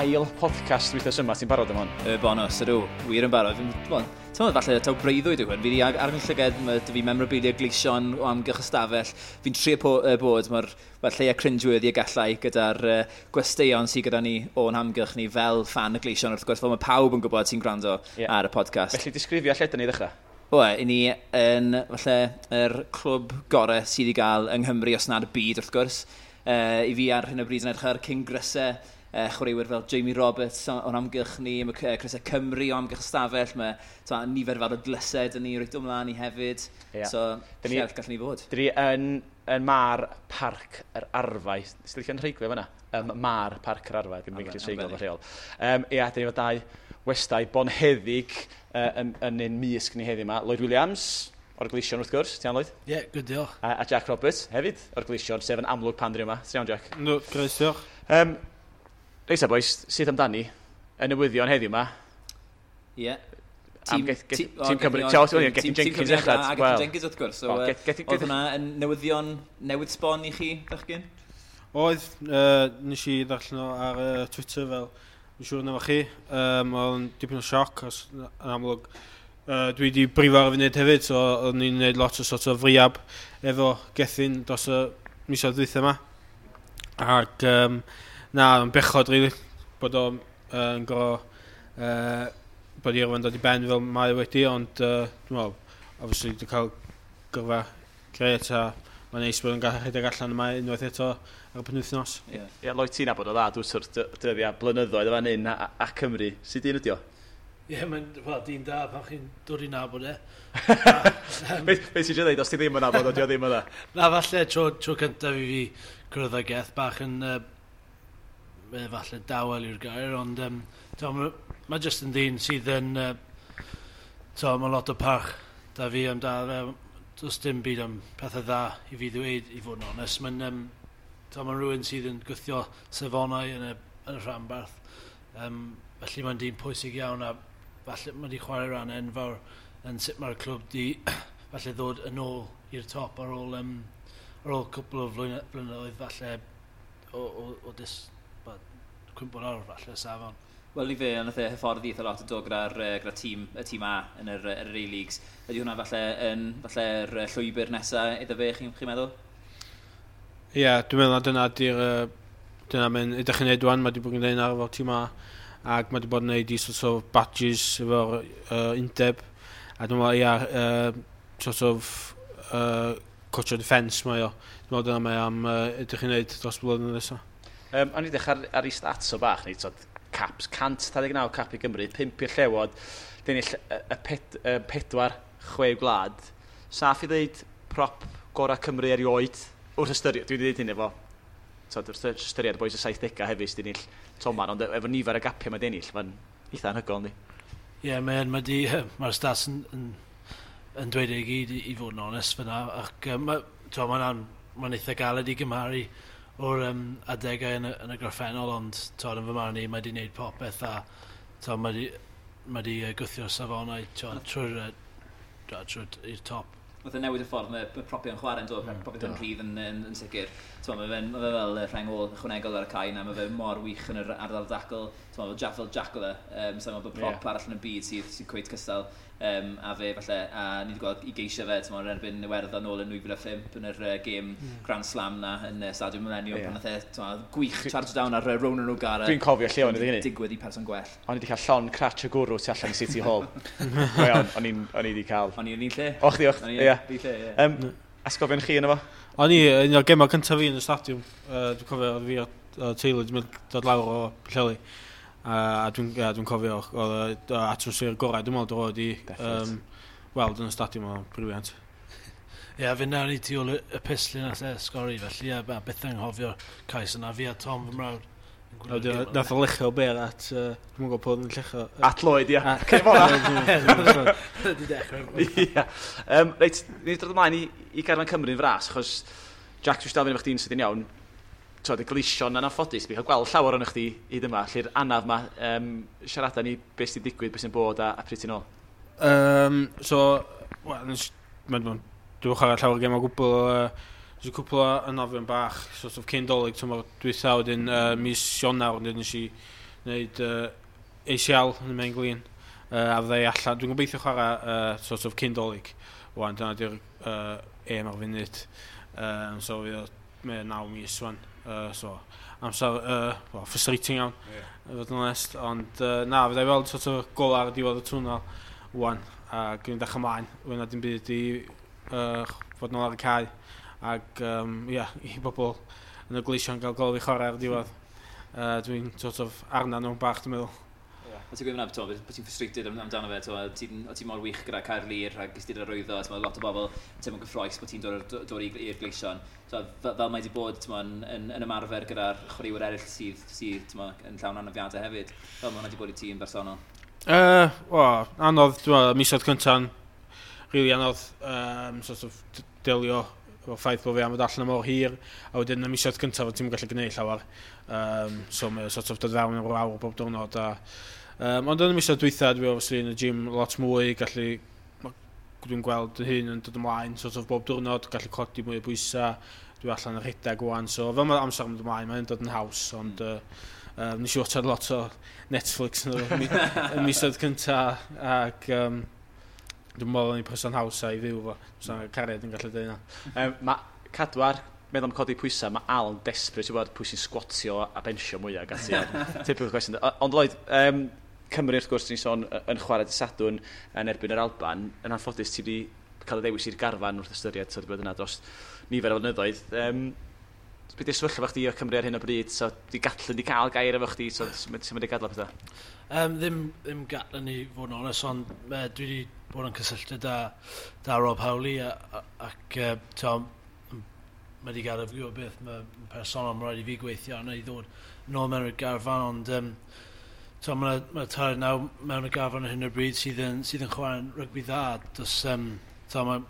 ail podcast wythnos yma. Ti'n barod am hwn? Y bonus, ydw. Wir yn barod. Fi'n meddwl falle taw breuddwyd yw hwn. Fi wedi ar fy llyged, mae dy fi memorabilia gleision o amgylch y stafell. Fi'n trio bod, mae'r ma lleia cringeworthy y gallai gyda'r gwesteion sydd gyda ni o'n hamgylch ni fel fan y gleision, wrth gwrs, fel mae pawb yn gwybod sy'n gwrando ar y podcast. Felly disgrifio lle dyn ni ddechrau? O, i ni yn falle yr clwb gorau sydd i gael yng Nghymru, os nad y byd, wrth gwrs. I fi ar hyn o bryd yn edrych ar King Grysau, chwaraewyr fel Jamie Roberts o'n amgylch ni, mae Crysau Cymru o amgylch y stafell, mae ta, nifer fawr o dlysau dyn ni reit o mlaen ni hefyd. So, lle arall gallwn ni fod? Dyn ni yn Mar Parc yr Arfau. Sy'n licio'n rheiglio fan'na? Mar Parc yr Arfau, ddim yn gallu treiglo fy rheol. Ia, dyn ni efo dau westai bonheddig yn ein mysg ni heddiw yma. Lloyd Williams, o'r Gleision wrth gwrs. Ti'n iawn, Lloyd? Ie, yeah, good, diolch. A Jack Roberts hefyd o'r Gleision, sef yn amlwg pan dyn ni yma. Ti'n iawn, Jack? No, grêt, diolch. Reit ta, boys, sydd amdani? Y newyddion heddiw yma. Ie. Am Tîm Cymru. Ti'n Gethin Jenkins ddechrau. A Gethin Jenkins wrth gwrs. So, oedd hwnna yn newyddion newydd sbon i chi, bechgyn? Oedd, nes i ddarllen o ar Twitter fel, dwi'n siŵr na fo chi. Oedd yn dipyn o sioc, os yn amlwg. Dwi wedi brifo ar y funud hefyd, so o'n i'n gwneud lot o sort of rehab efo Gethin dros y misoedd dwytha yma. Ac na, yn bechod, really, bod o'n gorfod bod i yrfa'n dod i ben fel mae wedi, ond dwi'n meddwl, obviously, dwi'n cael gyrfa grêt a mae'n neis bod yn gallu rhedeg allan yma unwaith eto ar y penwythnos. Ie, yeah, Lloyd, ti'n nabod o dda, dwi'n sort dyddiau blynyddoedd o fan hyn a Cymru. Sut dyn ydi o? Ie, yeah, mae'n well, dyn da pan chi'n dod i nabod e. Be ti'n eisiau dweud, os ti ddim yn nabod o, di o ddim yna? Na, falle tro cyntaf i fi cwrdd â Geth bach yn falle dawel yw'r gair, ond mae jyst yn ddyn sydd yn mae lot o parch da fi amdano fe. Does dim byd am pethau dda i fi ddweud, i fod yn onest. Mae'n ma rhywun sydd yn gwthio safonau yn y rhanbarth. Felly mae'n dyn pwysig iawn a falle mae wedi chwarae rhan enfawr yn sut mae'r clwb di falle ddod yn ôl i'r top ar ôl cwpl o blynyddoedd falle o cwympo lawr falle safon. Wel, i fe, nath e hyfforddi eitha lot o do gyda'r tîm, y tîm A yn yr A-Leagues. Ydy hwnna falle yn falle'r llwybr nesaf iddo fe, chi'n chi meddwl? Ie, yeah, dwi'n meddwl na dyna di'r dyna mae'n edrych yn neud wan, mae wedi bod yn gwneud ar efo tîm A ac mae wedi bod yn neud i sort of badges efo'r undeb a dwi'n meddwl, ia, sort of coach o defence mae o. Dwi'n meddwl dyna mae am edrych yn neud dros blwyddyn nesaf. O'n i ddechrau ar ei stats o bach, ni, tod, caps, 129 cap i Gymru, 5 i'r Llewod, dyn y pedwar chwe gwlad. Saff i ddeud prop gorau Cymru erioed, wrth ystyried, dwi wedi dweud hyn efo, tod, wrth ystyried boys y 70au hefyd sydd wedi ennill Toman, ond efo nifer y gapiau mae wedi ennill, mae'n eitha anhygoel, yndi? Ie, yeah, mae'r stats yn dweud e i gyd, i fod yn onest fyna, ac mae'n ma eitha galed i gymharu o'r adegau yn y gorffennol, ond to, yn fy marn i, mae wedi gwneud popeth a to, mae wedi gwthio'r safonau trwy'r i'r top. Nath e newid y ffordd mae propiau'n chwarae'n dod, propiau'n rhydd yn sicr. T'mo, mae fe fel rheng ôl ychwanegol ar y cae na, mae fe mor wych yn yr ardal dacl. T'mo, fel Jack oedd e, so mae bod prop arall yn y byd sydd cweit cystal a fe falle, a ni wedi gweld i geisio fe, t'mo, yn erbyn Iwerddon nôl yn 2005 yn yr game Grand Slam na yn Stadiwm Millennium, pan nath e, t'mo, gwych charge down ar Ronan O'Gara. Dwi'n cofio lle o'n i hynny. Digwydd i person gwell. O'n i wedi cael llond cratch o gwrw tu allan i City Hall. Go iawn, o'n i wedi cael. O'n i yn un lle. O, chdi, och, O'n i ie. yn un lle, ie. Atgofion chi yno fo? O'n i, un o'r gemau cyntaf fi yn y stadiwm, dwi'n cofio oedd fi a teulu wedi mynd dod lawr o Pwllheli. A dwi'n yeah, dwi cofio oedd y atmosffer gorau, dwi'n meddwl, dod i weld yn y stadiwm o'n brilliant. Ie, yeah, fe nawn ni tu ôl y pistol nath e sgori, felly ie, byth yn nghofio'r cais yna, fi a Tom fy mrawd yn gwylio'r Wedyn, gêm yna. nath o luchio bêl at, dwi'n gwybod pwy oedd yn lluchio. At Lloyd, ia. Cyn fo na. Di dechrau. Ia. Reit, ni wedi dod ymlaen i garfan Cymru'n fras, achos Jack, dwi'n siarad efo chdi'n sydyn iawn, twod, y Gleision yn anffodus, dwi'n cael gweld llawer o'n chdi hyd yma, lle'r anaf ma, siarada ni beth sy'n digwydd, beth sy'n bod a pryd ti'n ôl. So, wel, dwi'n chwarae llawer gem o gwbl. Nes i cwpl o anafion bach, sort of cyn Dolig, tymor dwytha, wedyn mis Ionawr, wedyn nes i wneud ACL yn y main glin, a fyddai allan. Dwi'n gobeithio chwarae sort of cyn Dolig. Wan, dyna di'r aim ar funud. So fydd o 9 mis wan. So, amser well, frustrating iawn, i fod yn onest. Ond na, fyddai weld sort of gola ar y diwedd y twnnel wan. A gwneud dechrau ymlaen. Fydd na dim byd i fod nôl ar y cae. Ac yeah, i bobl yn y Gleision gael gol fi chwarae ar y diwedd. Dwi'n sort of arna nhw'n bach, dwi'n meddwl. A ti'n gweud fyna, bod ti'n frustrated amdano fe, o ti mor wych gyda Caerlŷr a ges ti'r arwyddo, ti'n lot o bobl teimlo'n gyffroes bod ti'n dod i'r Gleision. So, fel mae wedi bod yn ymarfer gyda'r chwaraewyr eraill sydd yn llawn anafiadau hefyd, fel mae hwnna wedi bod i ti yn bersonol? Well, anodd, dwi'n meddwl, misoedd cynta'n really anodd sort of delio efo'r ffaith bod fi am fod allan am mor hir, a wedyn y misoedd cyntaf ti'n gallu gwneud llawer. So mae sort of dod fewn o'r awr bob diwrnod. Ond yn y misoedd dwytha, dwi obviously yn y gym lot mwy, gallu, dwi'n gweld fy hun yn dod ymlaen sort of bob diwrnod, gallu codi mwy o bwysau, dwi allan yn rhedeg wan, so fel mae amser yn mynd ymlaen, mae'n dod yn haws, ond nes i watchad lot o Netflix yn y misoedd cynta, ac dwi'n meddwl o'n i person haws i fyw fo, so cariad yn gallu dweud yna. Mae cadwar, meddwl am codi pwysau, mae Al yn desperate i wybod pwy sy'n squatio a benchio mwyaf ac ati. Typical question. Ond Lloyd, Cymru wrth gwrs, ni'n sôn yn chwarae dydd Sadwrn yn erbyn yr Alban. Yn anffodus, ti wedi cael y ddewis i'r garfan wrth ystyried, so wedi bod yna dros nifer o flynyddoedd. Beth yw'r sefyllfa chdi o Cymru ar hyn o bryd? So, di Gatland di cael gair efo chdi, so sut mae wedi gadael pethau? Ddim Gatland i fod yn onest, ond dwi wedi bod yn cysylltu da Rob Howley ac mae wedi gadael fi gwybod beth mae'n personol, mae'n rhaid i fi gweithio arno i ddod nôl mewn i'r garfan, ond mae tair naw mewn y garfan ar hyn o bryd sydd yn chwarae'n rygbi dda. Does, mae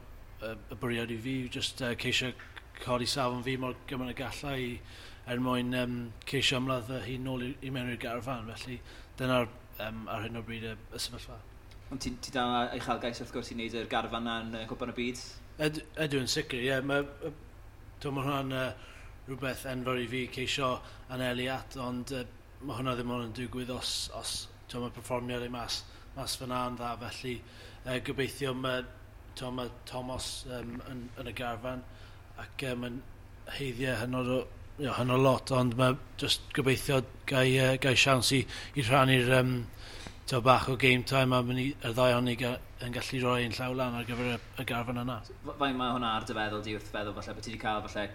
y bwriad i fi yw just ceisio codi safon fi mor gymaint y gallai i, er mwyn ceisio ymladd fy hun nôl i mewn i'r garfan. Felly dyna'r ar hyn o bryd y sefyllfa. Ond ti dal uchelgais wrth gwrs i wneud yr garfan na yn Cwpan y Byd? Ydw yn sicr, ie. Mae hwnna'n rhywbeth enfawr i fi ceisio anelu at, ond mae hwnna ddim ond yn digwydd os mae perfformiad ei mas fyna yn dda, felly gobeithio mae Thomas yn y garfan ac mae'n heiddiau hynod o hynod lot, ond mae just gobeithio gai siawns i rhannu'r bach o game time a y ddau o'n ni yn gallu rhoi ein llaw lan ar gyfer y garfan yna. Faint mae hwnna ar dy feddwl di wrth feddwl falle bod ti wedi cael falle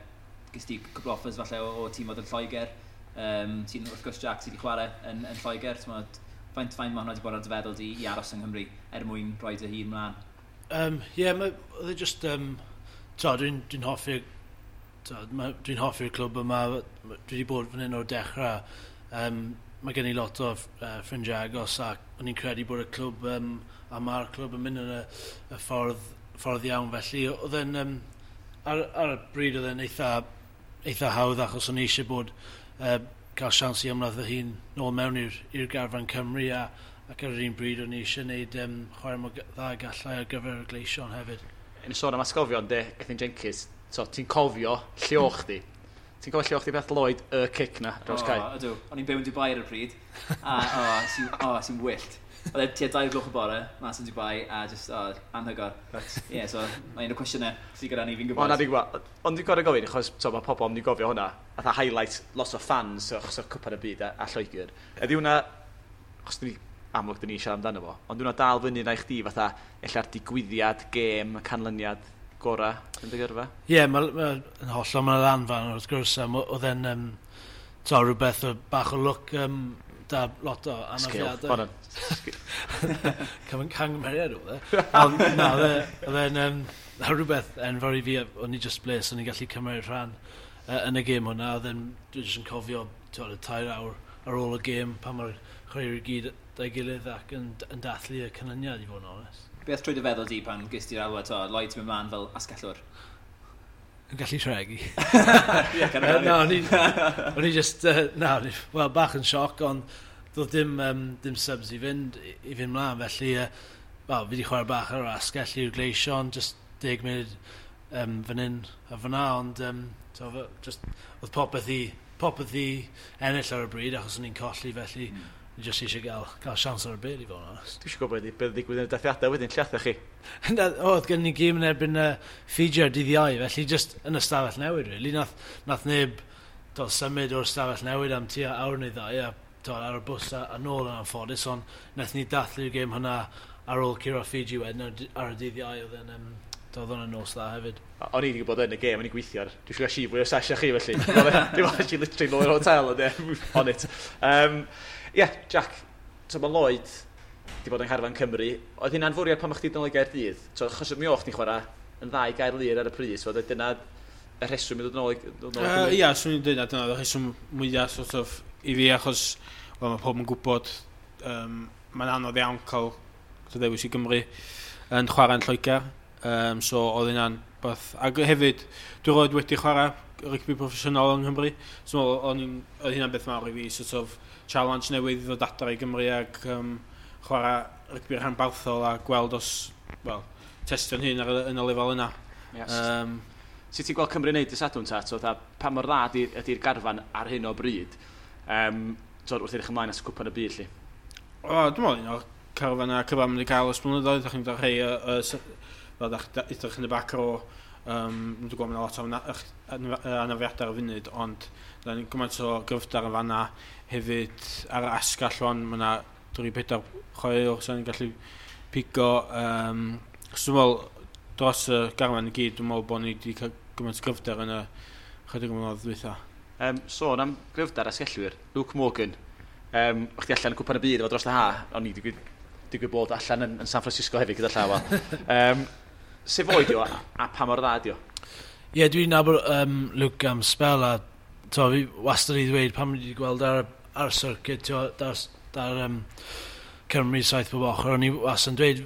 ges ti cwpl offers falle o tîm oedd yn Lloegr. Ti'n wrth gwrs Jack sydd wedi chwarae yn Lloegr. Faint mae hwnna wedi bod ar dy feddwl di i aros yng Nghymru er mwyn rhoi dy hun mlaen? Ie, oedd e just dwi'n hoffi'r dwi'n hoffi'r clwb yma, dwi wedi bod fan hyn o'r dechrau. Mae gen i lot o ffrindiau agos ac o'n i'n credu bod y clwb a mae'r clwb yn mynd yn y ffordd iawn. Felly oedd e'n ar y bryd oedd e'n eitha hawdd achos o'n i eisiau bod cael siawns i ymladd fy hun nôl mewn i'r garfan Cymru ac ar yr un bryd o'n i eisiau gwneud chwarae mor dda gallai ar gyfer y Gleision hefyd. Yn sôn am atgofion de, Gethin Jenkins, so, ti'n cofio lle o chdi? Ti'n cofio lle o chdi beth Lloyd y cic na dros cae? O, ydw. O'n i'n byw yn Dubai ar y pryd. A, sy'n wyllt. Oedd e tua 2 gloch y bore, mas yn Dubai, a just, anhygoel. Ie, yeah, so, mae un o'r cwestiynau sydd gyda ni, fi'n gwybod. O, na, fi'n gwybod. Ond dwi'n gorfod gofyn, achos so, mae pobl yn mynd i gofio hwnna, fatha highlight lot o fans achos o'r Cwpan y Byd a Lloegr. Ydy hwnna, achos dwi amlwg dyn ni siarad amdano fo, ond hwnna dal fyny na i chdi fatha ella'r digwyddiad, gêm, canlyniad gorau yn dy gyrfa? Ie, yeah, mae'n hollol, mae'n lanfan wrth gwrs, oedd e'n rhywbeth o bach o lwc da lot o anafiadau. Skill, Cangymeriad oedd e. Ond na, oedd e'n rhywbeth enfawr i fi, o'n i just bles, o'n i'n gallu cymryd rhan yn y gêm hwnna, oedd e'n, dwi jyst yn cofio y 3 awr ar ôl y gêm, pan mae'r chwaraewyr i gyd da'i gilydd ac yn dathlu y canlyniad i fod yn onest. Beth trwy dy feddwl di pan ges ti'r alwad, Lloyd ti'n mynd mlaen fel asgellwr? Yn gallu tregi. Na, o'n i just, wel, bach yn sioc, ond doedd dim subs i fynd mlaen, felly, wel, fi wedi chwarae bach ar yr asgell i'r Gleision, just 10 munud fan hyn a fyna, ond so, just, oedd popeth i ennill ar y bryd achos o'n i'n colli, felly ni jyst eisiau gael siawns ar y byd i fod yn onest. Dwi eisiau gwybod beth ddigwydd yn y dathliadau wedyn, lle aethoch chi? Oedd gen ni gêm yn erbyn Fiji ar dydd Iau, felly just yn y stafell newid, really. Nath neb symud o'r stafell newid am tua awr neu ddau, a ar y bws a nôl yn anffodus, ond nath ni dathlu'r gêm hwnna ar ôl curo Fiji wedyn ar y dydd Iau, oedd yn oedd hwnna'n nos dda hefyd. O'n i wedi gwybod yn y gêm, o'n i'n gweithio ar... Dwi eisiau gael si fwy o sesh â chi, felly. Dwi'n meddwl si literally nôl i'r hotel, ond on it. Yeah, Jack, so mae Lloyd wedi bod yng ngharfan Cymru. Oedd hynna'n fwriad pan o'ch chdi nôl i Gaerdydd? So, achos mi o'ch chdi'n chwarae yn dda i Gaerlŷr ar y pryd, so dyna y rheswm i ddod nôl i Cymru? Ia, swn i'n dweud na dyna y rheswm mwyaf sort of, i fi, achos well, mae pob yn gwybod mae'n anodd iawn cael ddewis i Gymru yn chwarae yn Lloegr. So oedd hynna'n beth. Ac hefyd, dwi roed wedi chwarae rygbi proffesiynol yng Nghymru. So oedd hynna'n beth mawr i fi, sort of challenge newydd i ddod adra i Gymru ac chwarae rygbi rhanbarthol a gweld os, well, testio'n hun yn y lefel yna. Yes. Sut ti'n gweld Cymru'n neud y Sadwrn ta? So, pa mor dda ydy'r garfan ar hyn o bryd? So, wrth edrych ymlaen at Cwpan y Byd, lli? O, dwi'n meddwl un o'r carfan a cyfan mynd i gael ers blynyddoedd. Ydych chi'n dod rhai fel ydych yn y back row, dwi'n gwybod mae'n lot o anafiadau ar y funud, ond da ni'n gymaint o gryfder yn fanna. Hefyd ar y asgall wan, mae yna 3-4 chwaraewr sy'n gallu pigo. So dwi'n meddwl, dros y garfan i gyd, dwi'n meddwl bod ni wedi cael gymaint o gryfder yn y chydig o blynyddoedd dwytha. Sôn am gryfder asgellwyr, Luke Morgan. O'ch chi allan yn Cwpan y Byd efo dros y ha, o'n i digwydd bod allan yn San Francisco hefyd gyda llaw. Sef oed o a pa mor dda ydi o? Ie, yeah, dwi'n nabod Luke am spel a to, fi wastad i ddweud pan wedi gweld ar circuit, to, dar Cymru saith bob ochr, o'n i wastad yn dweud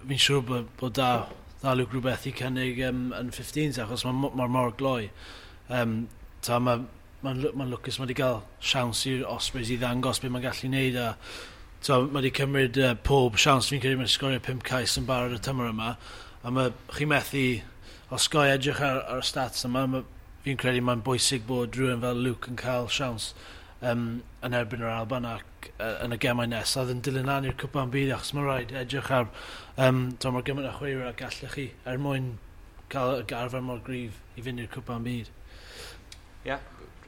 fi'n siŵr bod da Luke rhywbeth i cynnig yn 15s achos mae mor gloi. Mae'n lwcus mae wedi cael siawns i'r Ospreys i ddangos beth mae'n gallu gwneud a so, mae wedi cymryd pob siawns, fi'n credu mae'n sgorio 5 cais yn barod y tymor yma a mae chi methu osgoi edrych ar y stats yma, fi'n credu mae'n bwysig bod rhywun fel Luke yn cael siawns yn erbyn yr Alban ac yn y gemau nesaf yn dilyn lan i'r Cwpan Byd achos mae'n rhaid edrych ar mor gymaint o chwaraewyr a gallech chi er mwyn cael y garfan mor gryf i fynd i'r Cwpan Byd. Ie, yeah.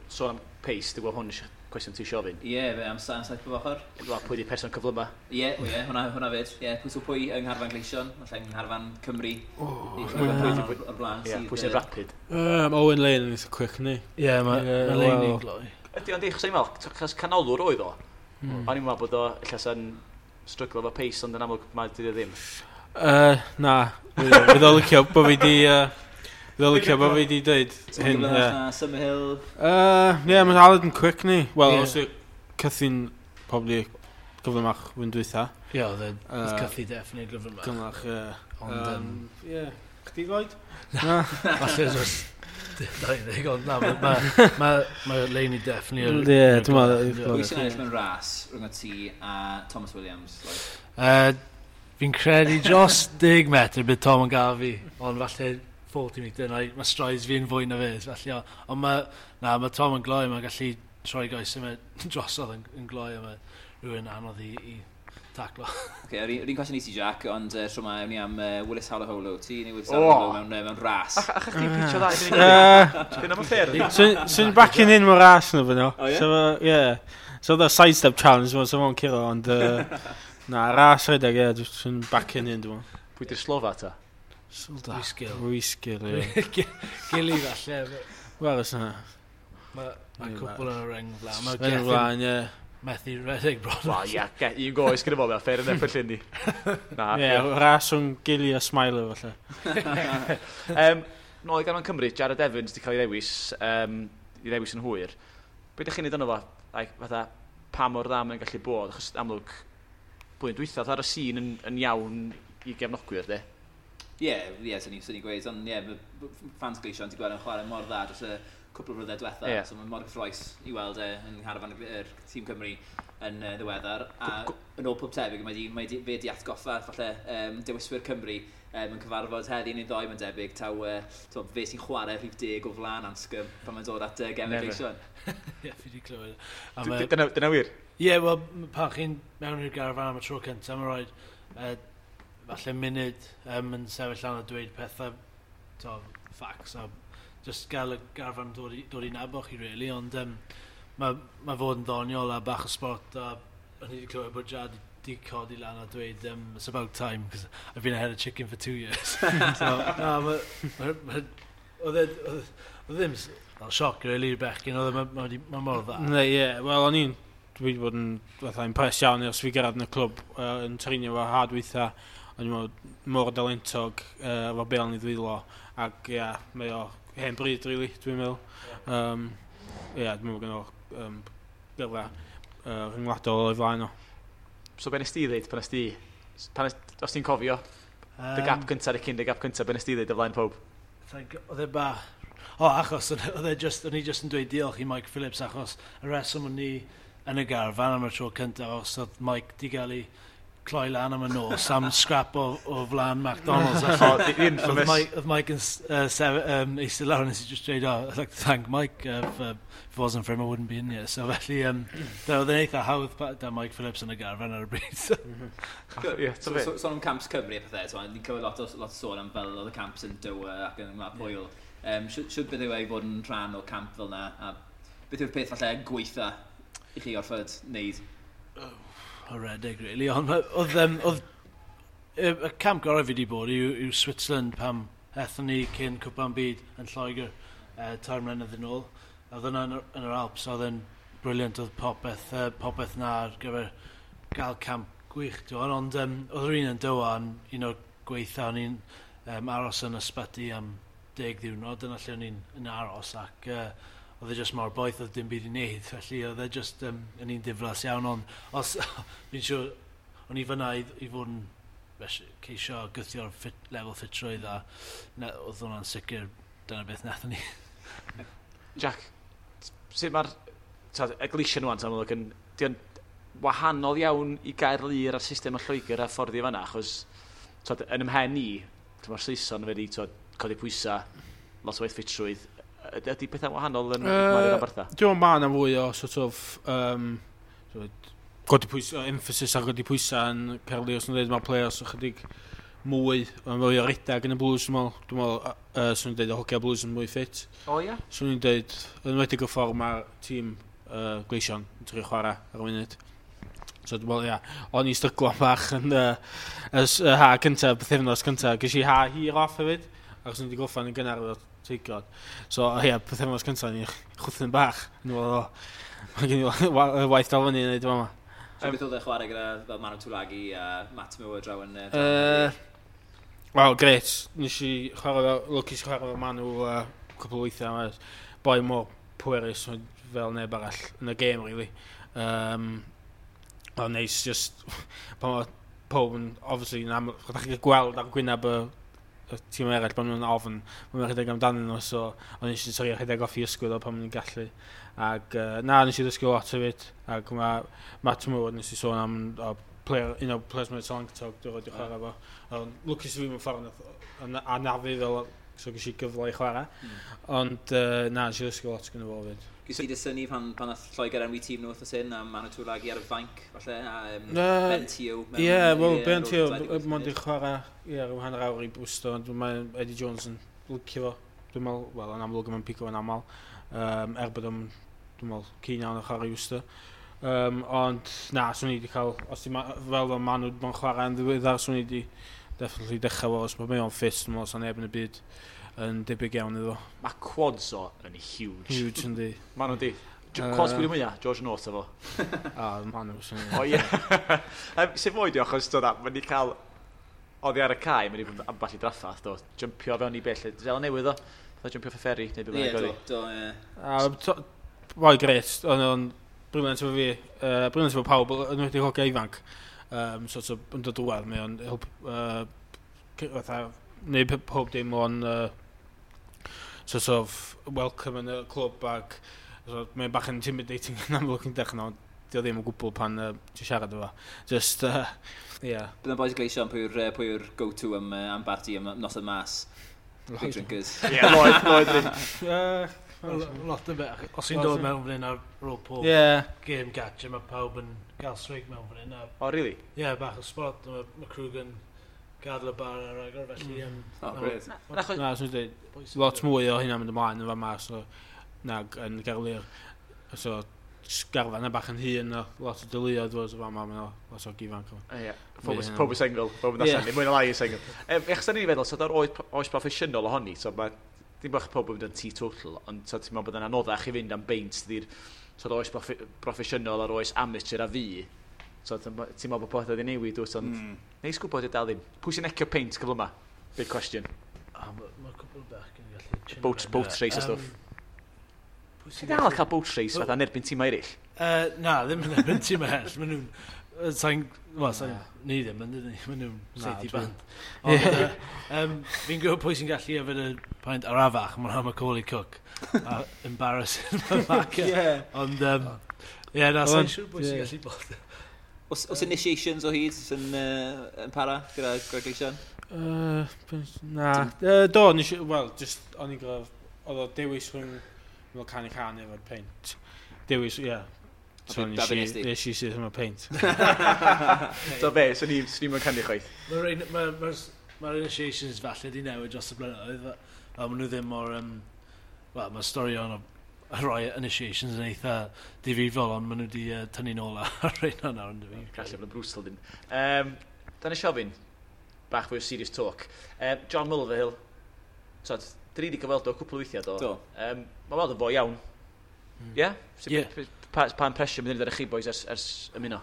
Sôn am pace, dwi'n gwybod hwn cwestiwn ti eisiau ofyn. Ie, yeah, am saith bob ochr. Wel, pwy di person cyflyma? Ie, hwnna fyd. Ie, pwy yng ngharfan Gleision, falle yng ngharfan Cymru. O'r blaen. Ie, pwy sy'n rapid? Owen Lane yn eitha quick, ni. Ie, mae Lane yn gloi. Ydy, ond eich meddwl, chos canolwr oedd o. O'n i'n meddwl bod o ella sa'n stryglo efo pace, ond yn amlwg mae dydy o ddim. Na, fydd o licio bod fi di... Fydd o licio bod fi di dweud hyn. Summerhill. Ie, mae Aled yn quick ni. Wel, os yw Cythu'n probably gyflymach wyn dwytha. Ie, oedd Cythu definitely gyflymach. Gyflymach, ie. Ond, ie. Chdi Lloyd? Na. Falle dros 20, ond na, mae Laney definitely... Ie, dwi'n meddwl. Pwy sy'n ennill mewn ras rhwng y ti a Thomas Williams? Fi'n credu dros 10 metr bydd Tom yn gael fi, ond falle 40 metre, mae strides fi'n fwy na fe, felly, ond mae Tom yn gloi, mae'n gallu troi goes yma drosodd yn gloi, a mae rhywun anodd i taclo. Oce, yr un cwestiwn i ti, Jack, ond tro ma, ewn ni am Willis Halaholo. Ti neu Willis Halaholo mewn ras? Ach chdi'n pitio dda i fyny? Dyn am y ffair? Swn backing in mewn ras nhw fyno. O, ie? So, yeah. So, the sidestep challenge, so fo'n curo, ond na, ras rhedeg, ie, swn backing in, dwi'n meddwl. Pwy di'r slofa ta? Rhysgil, ie. Gili falle. Wel, os na. Mae cwpl yn y reng flaen. Mae Reng flaen, ie. Methu redeg bron. Wel, ie, un goes gyda fo, fair enough felly ni. Ie, ras rhwng Gili a Smiler, falle. Nôl i garfan Cymru, Jared Evans wedi cael ei ddewis yn hwyr. Be ydych chi'n neud yno fo? Fatha, pa mor dda mae'n gallu bod? Achos amlwg, blwyddyn dwytha, ar y sîn yn iawn i gefnogwyr, de? Ie, swn i'n gweud, ond ie, fans Gleision ti'n gweld yn chwarae mor dda dros y cwpl o flynyddoedd diwetha, so mae'n mor gyffrous i weld e yn ngharfan yr tîm Cymru yn ddiweddar. A yn ôl pob tebyg, mae fe di atgoffa falle dewiswyr Cymru yn cyfarfod heddi neu ddoe, mae'n debyg, taw fe sy'n chwarae rhif 10 o flaen Anscombe pan mae'n dod at gemau Gleision. Ie, fi wedi clywed. Dyna wir? Ie, yeah, wel, pan chi'n mewn i'r garfan am y tro cyntaf, mae'n rhaid falle munud yn sefyll lan a dweud pethau, to, facts, a just gael y garfan dod i nabod chi, really, ond mae fod yn ddoniol a bach o sport, a o'n i wedi clywed bod Jad di codi lan a dweud, it's about time, because I've been ahead of chicken for 2 years. So, no, oedd e ddim fel sioc, really, i'r bechgyn, oedd e mor dda. Ne, ie, wel, o'n i'n dwi wedi bod yn fatha impressed iawn ers fi gyrraedd yn y clwb yn treinio fo ha dwytha, o'n i'n meddwl mor dalentog efo bêl yn ei ddwylo, ac ie, yeah, mae o hen bryd, really, dwi'n meddwl. Ie, dwi'n meddwl gynno gyrfa rhyngwladol o'i flaen o. So be nes ti ddeud pan nes ti, os ti'n cofio, dy gap cyntaf, y cyn dy gap cyntaf, be nes ti ddeud o flaen pob? Oedd e bach, o achos, oedd e just, o'n i just yn dweud diolch i Mike Phillips, achos y reswm o'n i yn y garfan am y tro cyntaf, os oedd Mike di gael ei cloi lan am y nos am scrap o flaen McDonald's. Oh, the infamous. Oedd Mike yn eistedd lawr, nes i just dweud, oh, I'd like to thank Mike, if it wasn't for him I wouldn't be in here. So felly, oedd e'n eitha hawdd da Mike Phillips yn y garfan ar y bryd. So, sôn am camps Cymru a pethau, so, ni'n clywed lot o sôn am fel oedd y camps yn Doha ac yn Gwlad Pwyl. Siwt beth yw e i fod yn rhan o camp fel na, a beth yw'r peth falle gweitha i chi orfod wneud? Oh, redeg, really. Ond oedd y camp gorau fi wedi bod yw Switzerland pam ethon ni cyn Cwpan Byd yn Lloegr 3 mlynedd yn ôl. Oedd yna yn yr Alps, oedd yn brilliant, oedd popeth na ar gyfer gael camp gwych. Ond oedd yr un yn Doha yn un o'r gweitha, o'n i'n aros yn ysbyty am 10 ddiwrnod, dyna lle o'n i'n aros, ac oedd e just mor boeth, oedd dim byd i wneud, felly oedd e just yn un diflas iawn, ond os, fi'n siŵr, o'n i fyna i fod yn ceisio gythio'r lefel ffitrwydd, a oedd hwnna'n sicr, dyna beth nathon ni. Jack, sut mae'r y Gleision rŵan, amlwg, yn wahanol iawn i Gaerlŷr a'r system o Lloegr a ffordd i fanna, achos yn ymhen ni, mae'r Saeson wedi codi pwysau, lot o waith ffitrwydd. Ydy pethau wahanol yn Mario Roberta? Dwi'n meddwl mae yna fwy o sort of godi pwysau, emphasis ar godi pwysau yn Caerlŷr, os nhw'n dweud mae'r players ychydig mwy, mae'n fwy o redag yn y Blues, dwi'n meddwl, swn i'n dweud y hogia Blues yn mwy ffit. O ie? Swn i'n dweud, yn enwedig y ffordd mae'r tîm Gleision yn trio chwarae ar y munud. So dwi'n meddwl, ia, o'n i stryglo bach yn y ha cyntaf, pythefnos cyntaf, ges i ha hir off hefyd, achos o'n i wedi gorffen yn gynnar efo Teigod. So, ie, pythefnos cyntaf ni chwthyn bach. Yn meddwl, mae gen i waith dal fyny yn neud yma. So beth oedd e chwarae gyda fel Manu Tuilagi a Matt Moore draw yn... Wel, gret. Nes i chwarae fel, lwcus i chwarae fel Manu cwpl o weithiau. Mae boi mor pwerus fel neb arall yn y gêm, really. O'n neis, just, pan mae pob yn, obviously, yn aml, chydach chi'n gweld ar gwyneb y tîm eraill pan nhw'n ofn, maen nhw'n rhedeg amdanyn nhw, so o'n eisiau trio rhedeg off i ysgwydd o pan maen nhw'n gallu. Ac na, nes i ddysgu lot hefyd, ac mae Matt Moore, nes i sôn am player, un o'r players mwy talentog dwi'n rhaid i chwarae fo. Ond lwcus i fi mewn ffordd anafu fel, so ges i gyfle i chwarae. Ond na, nes i ddysgu lot gyda fo hefyd. Ges i dy synnu pan nath Lloegr enwi tîm nhw wythnos hyn, a Manu Tuilagi ar y fainc, falle, a Ben Teo. Ie, wel, Ben Teo, mond i chwarae, ie, rhyw hanner awr i Bwsto, ond mae Eddie Jones yn licio fo. Dwi'n meddwl, wel, yn amlwg mae'n pigo yn aml, er bod o'n, dwi'n meddwl, keen iawn o chwarae i Worcester. Ond, na, swn i wedi cael, os ti fel fel Manu mae'n chwarae yn ddiweddar, swn i wedi definitely dechrau fo, os mae o'n ffit, dwi'n meddwl, sa'n neb yn y byd yn debyg iawn iddo. Mae quads o yn huge. Huge, yndi. Maen nhw'n di. Quads pwy mwyaf? George North efo. A, maen nhw. O ie. Sut fwy di achos, mae'n di cael oddi ar y cae, mae'n di bod ambell i draffath, do. Jumpio fewn i bell. Fel newydd o. Fatha jumpio off y ferry, neu beth bynnag oedd. Ie, do, ie. Boi gret, ond o'n brilliant efo fi, brilliant efo pawb, yn wedi hogia ifanc. Sort of, yn dod drwadd, mae o'n help, fatha, neud pob dim o'n sort of welcome yn y clwb ac so, mae'n bach yn intimidating yn amlwg yn dechrau, ond dio ddim o gwbl pan ti'n siarad efo. Just, yeah. Bydd yn boys Gleision, pwy yw'r go-to am barti, am noson mas? Big drinkers. Ie, Lloyd. Lot o beth. Os i'n dod mewn fan hyn ar ôl pob game catcher, mae pawb yn gael swig mewn fan hyn. Oh, really? Ie, yeah, bach o spot. Mae Krug yn gadael y bar ar agor, felly... Oh, great. Na, swn i'n dweud, lot mwy o hynna'n mynd ymlaen yn fama, so, nag yn Gaerlŷr. So, garfan yna bach yn hŷn, lot o deuluoedd fod yn fama, mae'n lot o ifanc. Ie, pob yn sengl, pob yn allan, mwy na lai yn sengl. Echos da ni'n feddwl, so da'r oes proffesiynol ohoni, so mae dim bach pob yn mynd yn teetotal, ond so ti'n meddwl bod yn anoddach i fynd am beint ydy'r so oes proffesiynol a'r oes amateur a fi. So ti'n meddwl bod pethau wedi newid, dwyt, ond neis gwybod i dal ddim. Pwy sy'n ecio peint cyfle yma? Big question. Mae cwbl bach yn gallu... Boat race a stwff. Ti'n dal cael boat race fatha yn erbyn tîmau eraill? Na, ddim yn erbyn tîmau eraill. Maen nhw'n... Wel, ni ddim yn dydyn ni. Maen nhw'n seithi band. Ond fi'n gwybod pwy sy'n gallu yfed y paint arafach, mae'n am Macaulay Cook. A embarrassing mae'n. Ond, ie, na, sa'n siŵr pwy sy'n gallu bod. Oes initiations o hyd sy'n yn para gyda Gleision? Na. Do, wel, just, o'n i'n gwybod, oedd o dewis rhwng fel canu can efo'r peint. Dewis, ie. So nes i sydd yma peint. So be, so ni'n canu chwaith? Mae'r initiations falle di newid dros y blynyddoedd. Fel maen nhw ddim mor... Wel, mae storion o rhai initiations yn eitha difrifol, ond maen nhw wedi tynnu nôl ar rheina nawr yn dyfu. Gallu bod yn brutal dyn. Dan i siofyn, bach fwy o serious talk. John Mulvihill, so, dyn ni wedi gyfweld o cwpl o weithiau do. Do. Mae weld yn fwy iawn. Ie? Yeah? Pa impression mynd ar chi boys ers ymuno?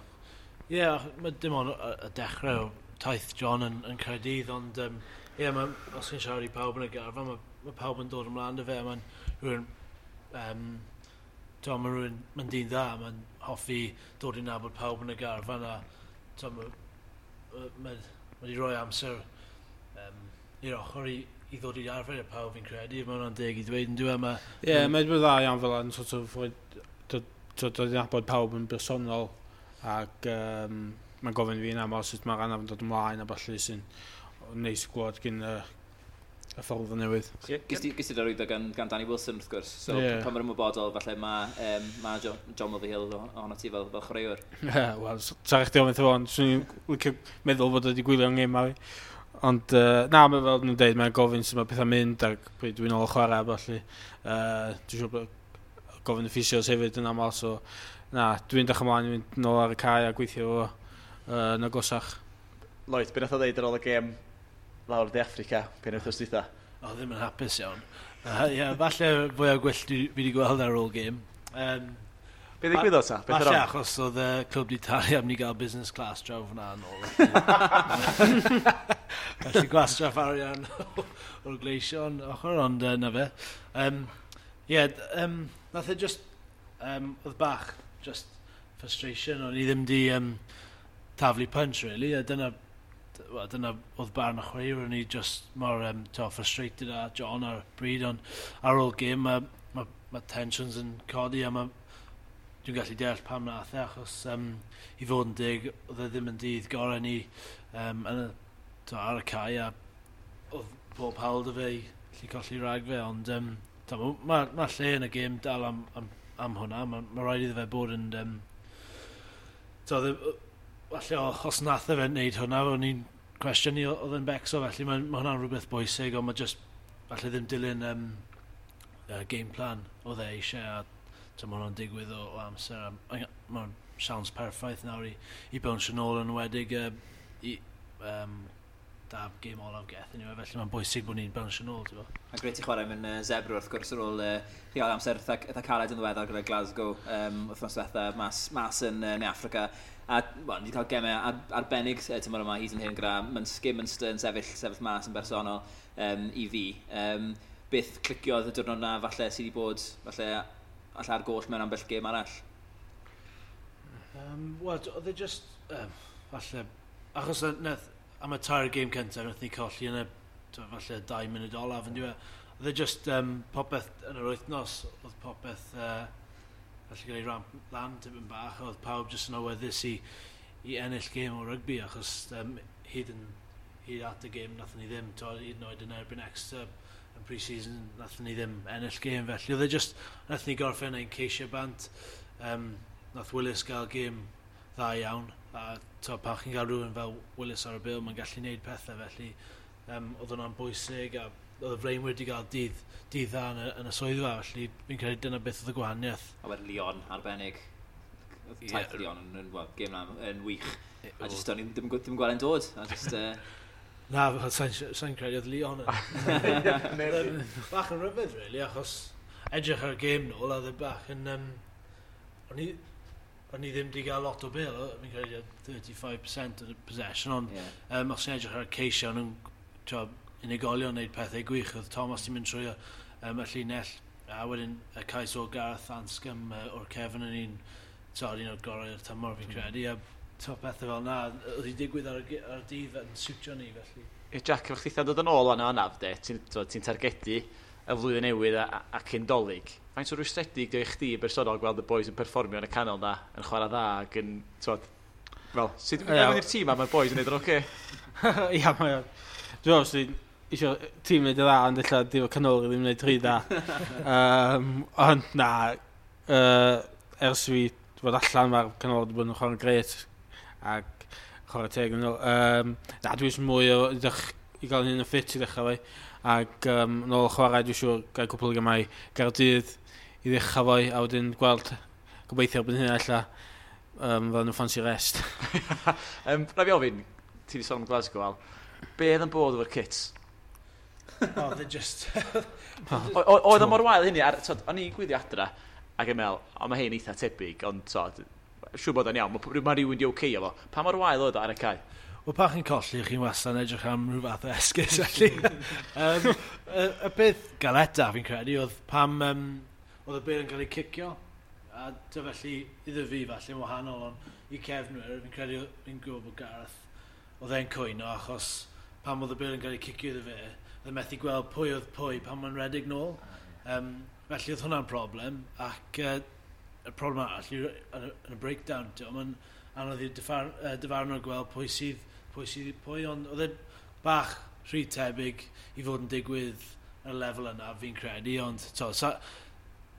Ie, yeah, mae dim ond y dechrau o taith John yn Caerdydd, ond ie, os chi'n siarad i pawb yn y garfan, mae pawb yn dod ymlaen dy fe, mae'n rhywun, mae rhywun, mae'n dyn dda, mae'n hoffi dod i nabod pawb yn y garfan, a mae wedi rhoi amser i'r ochr i ddod i arfer i'r pawb fi'n credu, mae hwnna'n deg i ddweud yn dwi. Ie, mae'n dda iawn fel yn sort of dod i nabod pawb yn bersonol ac mae'n gofyn fi yn aml sut mae'r anaf yn dod ymlaen a ballu sy'n neis gwlad gyn y ffordd o newydd. Gys ti darwyddo gan Danny Wilson wrth gwrs, so pan mae'r ymwybodol falle mae John Mulvihill ohono ti fel chwaraewr. Ie, wel, sarach di ofyn ond swn i'n licio meddwl bod wedi gwylio'n gêm a fi. Ond na, mae fel nhw'n dweud, mae'n gofyn sut mae pethau'n mynd ac pryd dwi'n ôl chwarae a ballu. Dwi'n siŵr bod gofyn y ffisios hefyd yn aml, so na, dwi'n dechrau ymlaen i fynd nôl ar y cae a gweithio fo yn agosach. Lloyd, be nath o ddeud ar ôl y gêm lawr De Affrica, pen wythnos dwytha? O, ddim yn hapus iawn. Ie, falle fwy o gwyllt fi wedi gweld ar ôl gêm. Be ddigwyddodd ta? Falle achos oedd y clwb di talu am ni gael business class draw fyna yn ôl. Felly gwastraff arian o'r Gleision ochr, ond na fe. Ie, nath e just, oedd bach, just frustration, o'n i ddim di taflu punch, really, a dyna oedd barn y chwaraewr, o'n i just mor frustrated a John ar bryd, ond ar ôl gêm mae tensions yn codi a mae dwi'n gallu deall pam nath e, achos i fod yn deg, oedd e ddim yn dydd gorau ni ar y cae, a oedd pob hawl dy fe i allu colli rhag fe, ond mae lle yn y gêm dal am hwnna, mae rhaid iddo fe bod yn... Falle os nath e fe wneud hwnna, o'n i'n cwestiynu oedd yn becso, felly mae hwnna'n rhywbeth bwysig, ond mae just falle ddim dilyn game plan oedd e eisiau, a mae hwnna'n digwydd o amser. Mae'n siawns perffaith nawr i bownsio nôl yn enwedig i da gêm olaf Geth anyway, felly mae'n bwysig bod ni'n bownsio nôl, ti'n bo. Mae'n grêt i chwarae mewn Zebra wrth gwrs ar ôl chi gael amser eitha caled yn ddiweddar gyda Glasgow wythnos diwetha mas yn Ne Affrica. A well, ni wedi cael gemau arbennig tymor yma hyd yn hyn gyda Munster yn sefyll mas yn bersonol i fi. Beth cliciodd y diwrnod na falle sydd wedi bod falle ar goll mewn ambell gêm arall? Wel, oedd e just falle achos nath am y tair gêm cyntaf nath ni colli yn y falle 2 munud olaf yn diwedd. Oedd e just popeth yn yr wythnos, oedd popeth falle gael ei ramp lan tipyn bach, oedd pawb jyst yn awyddus i ennill gêm o rygbi, achos hyd at y gêm nathon ni ddim, to, hyd yn oed yn erbyn Exeter yn pre-season, nathon ni ddim ennill gêm, felly oedd e just, nathon ni gorffen ein ceisio bant, nath Willis gael gêm dda iawn, a to, pan chi'n gael rhywun fel Willis ar y bil, mae'n gallu gwneud pethau, felly oedd hwnna'n bwysig, a oedd y flaenwyr wedi cael dydd dda yn y swyddfa, felly fi'n credu dyna beth oedd y gwahaniaeth. A wedyn Lyon arbennig. Taith Lyon yn well, gêm na yn wych. A just o'n i ddim gweld e'n dod. A just, Na, sa'n credu oedd Lyon yn. Bach yn rhyfedd, really, achos edrych ar y gêm nôl, a oedd e bach yn... O'n i ddim wedi cael lot o bêl, fi'n credu 35% of the possession, ond os ti'n edrych ar y ceisio, o'n nhw'n unigolion wneud pethau gwych. Oedd Thomas ti'n mynd trwy y llinell, a wedyn y cais o Gareth Anscombe o'r cefn yn un o'r gorau o'r tymor fi'n credu, a pethau fel na, oedd hi'n digwydd ar y dydd yn siwtio ni, felly. Jack, efo chdi dod yn ôl o'n anaf, de, ti'n targedu y flwyddyn newydd a cyn Dolig. Faint o rwystredig di i chdi bersonol gweld y boys yn perfformio yn y canol na, yn chwarae dda ac yn, twod, fel, sut dwi'n mynd i'r tîm a mae'r boys yn neud yn oce? Ia, mae o'n. Dwi'n meddwl, sy'n eisiau tîm wneud y dda, ond ella di fo canol ddim wneud rhy dda. Ond na, ers fi fod allan, mae'r canol wedi bod yn chwarae'n grêt ac chwarae teg yn ôl. Na, dwi eisiau mwy o i gael hyn yn ffit i ddechrau fi. Ac nôl chwarae, dwi'n siŵr gael cwpl o gemau Gaerdydd i ddechrau fo, a wedyn gweld gobeithio erbyn hynna ella fel nhw ffansi rest. Rhaid fi ofyn, ti wedi sôn am Glasgow, Al, be oedd yn bod efo'r kits? Oh, they just... Oedd o mor wael hynny, o'n i'n gwylio adra, ac yn meddwl, o mae hyn eitha tebyg, ond siŵr bod o'n iawn, mae rhywun di oce efo. Pa mor wael oedd o ar y cae? Wel, pan chi'n colli, chi'n wastad yn edrych am rhyw fath o esgus, felly. Y peth galeta, fi'n credu, oedd pam oedd y bêl yn cael ei cicio, a dy felly, iddo fi falle yn wahanol, ond i cefnwyr, fi'n credu, fi'n gwybod bod Gareth, oedd e'n cwyno, achos pam oedd y bêl yn cael ei cicio iddo fe, oedd e methu gweld pwy oedd pwy pan mae'n redeg nôl. Felly oedd hwnna'n problem, ac y problem arall yw yn y breakdown, mae'n anodd i'r dyfarnwr gweld pwy sydd pwy, ond oedd e bach rhy tebyg i fod yn digwydd ar y lefel yna, fi'n credu, ond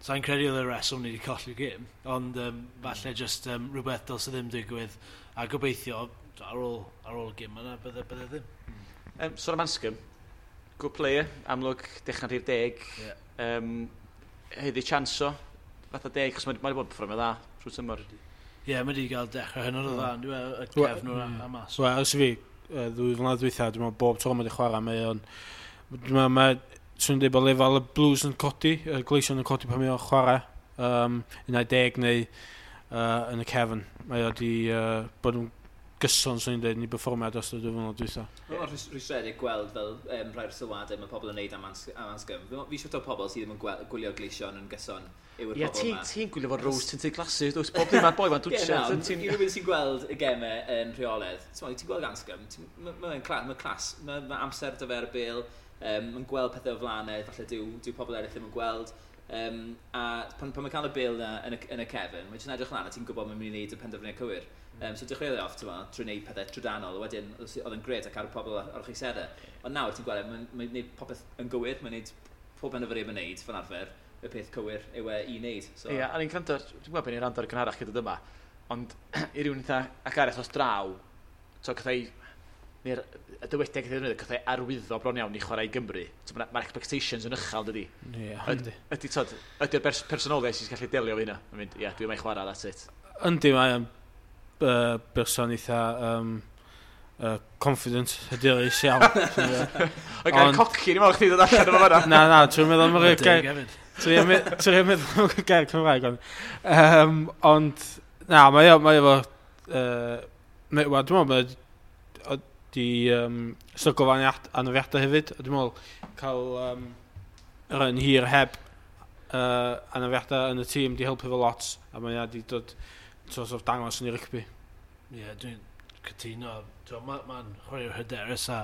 sa'n credu oedd y reswm ni wedi colli'r gêm, ond falle just rhywbeth dylse ddim digwydd, a gobeithio ar ôl y gêm yna, bydde ddim. Sôn am Anscombe, good player, amlwg dechrau rhif 10, heddi chance o, fatha 10, achos mae wedi bod yn perfformio dda trwy tymor. Ie, mae wedi cael dechrau hynod o dda, dwi'n y cefnwr a mas. Wel, ers i fi, 2 flynedd dwytha, dwi'n meddwl bob tro mae wedi chwarae, mae o'n... Dwi'n meddwl, mae, swn i'n dweud bod lefel y Blues yn codi, y Gleision yn codi pan mae o'n chwarae, 11 neu yn y cefn. Mae o wedi bod yn gyson, swn i'n dweud, yn ei berfformiad dros y 2 flynedd dwytha. Mae'n rhwystredig gweld fel rhai'r sylwadau mae pobl yn neud am Anscombe. Fi siŵr o pobl sydd ddim yn gwylio'r Gleision yn gyson yw'r pobl yma. Ti'n gwylio fod rose tinted glasses, does bob dim mae'r boi ma'n dwtio. Ie, rhywun sy'n gweld y gemau yn rheolaidd. Ti'n gweld Anscombe, mae'n clas, mae amser dy fe ar y bêl, mae'n gweld pethau o flaenau, falle dyw pobl eraill ddim yn gweld. A pan mae'n cael y bêl na yn y cefn, mae'n jyst edrych lan a ti'n gwybod mae'n mynd i wneud y penderfyniad cywir. So dechreuodd e off, trwy wneud pethau trydanol, wedyn oedd yn grêt ac ar y pobl ar o'ch eisteddau. Ond nawr ti'n gweld, mae'n gwneud popeth yn gywir, mae'n gwneud pob penderfyniad mae'n gwneud fel arfer, y peth cywir yw e i wneud. So. Ie, a ni'n gwrando, dwi'n gwybod beth ni'n rando ar y gynharach gyda dyma, ond i rywun eitha ac arall os draw, so cathau, neu'r y dywediad gath ei ddefnyddio, cathau arwyddo bron iawn i chwarae i Gymru. So, mae'r expectations yn uchel, dydy. Ie, yndi. Ydy, ydy'r personoliaeth sy'n gallu delio efo hynna? Mae'n mynd, ie, dwi'n ei chwarae, that's it. Yndi, mae'n berson eitha confident, hyderus iawn. Oedd gael coci, ni'n meddwl chdi ddod allan efo fanna. Na, dwi'n meddwl am y gair... Dwi'n meddwl am y gair Cymraeg. Ond, na, mae efo... Dwi'n meddwl mae di stryglo fo anafiadau hefyd. Dwi'n meddwl cael yr un hir heb anafiadau yn y tîm di helpu fo lot, a mae wedi dod sort of dangos yn ei rygbi. Ie, dwi'n cytuno. Mae'n chwaraewr hyderus a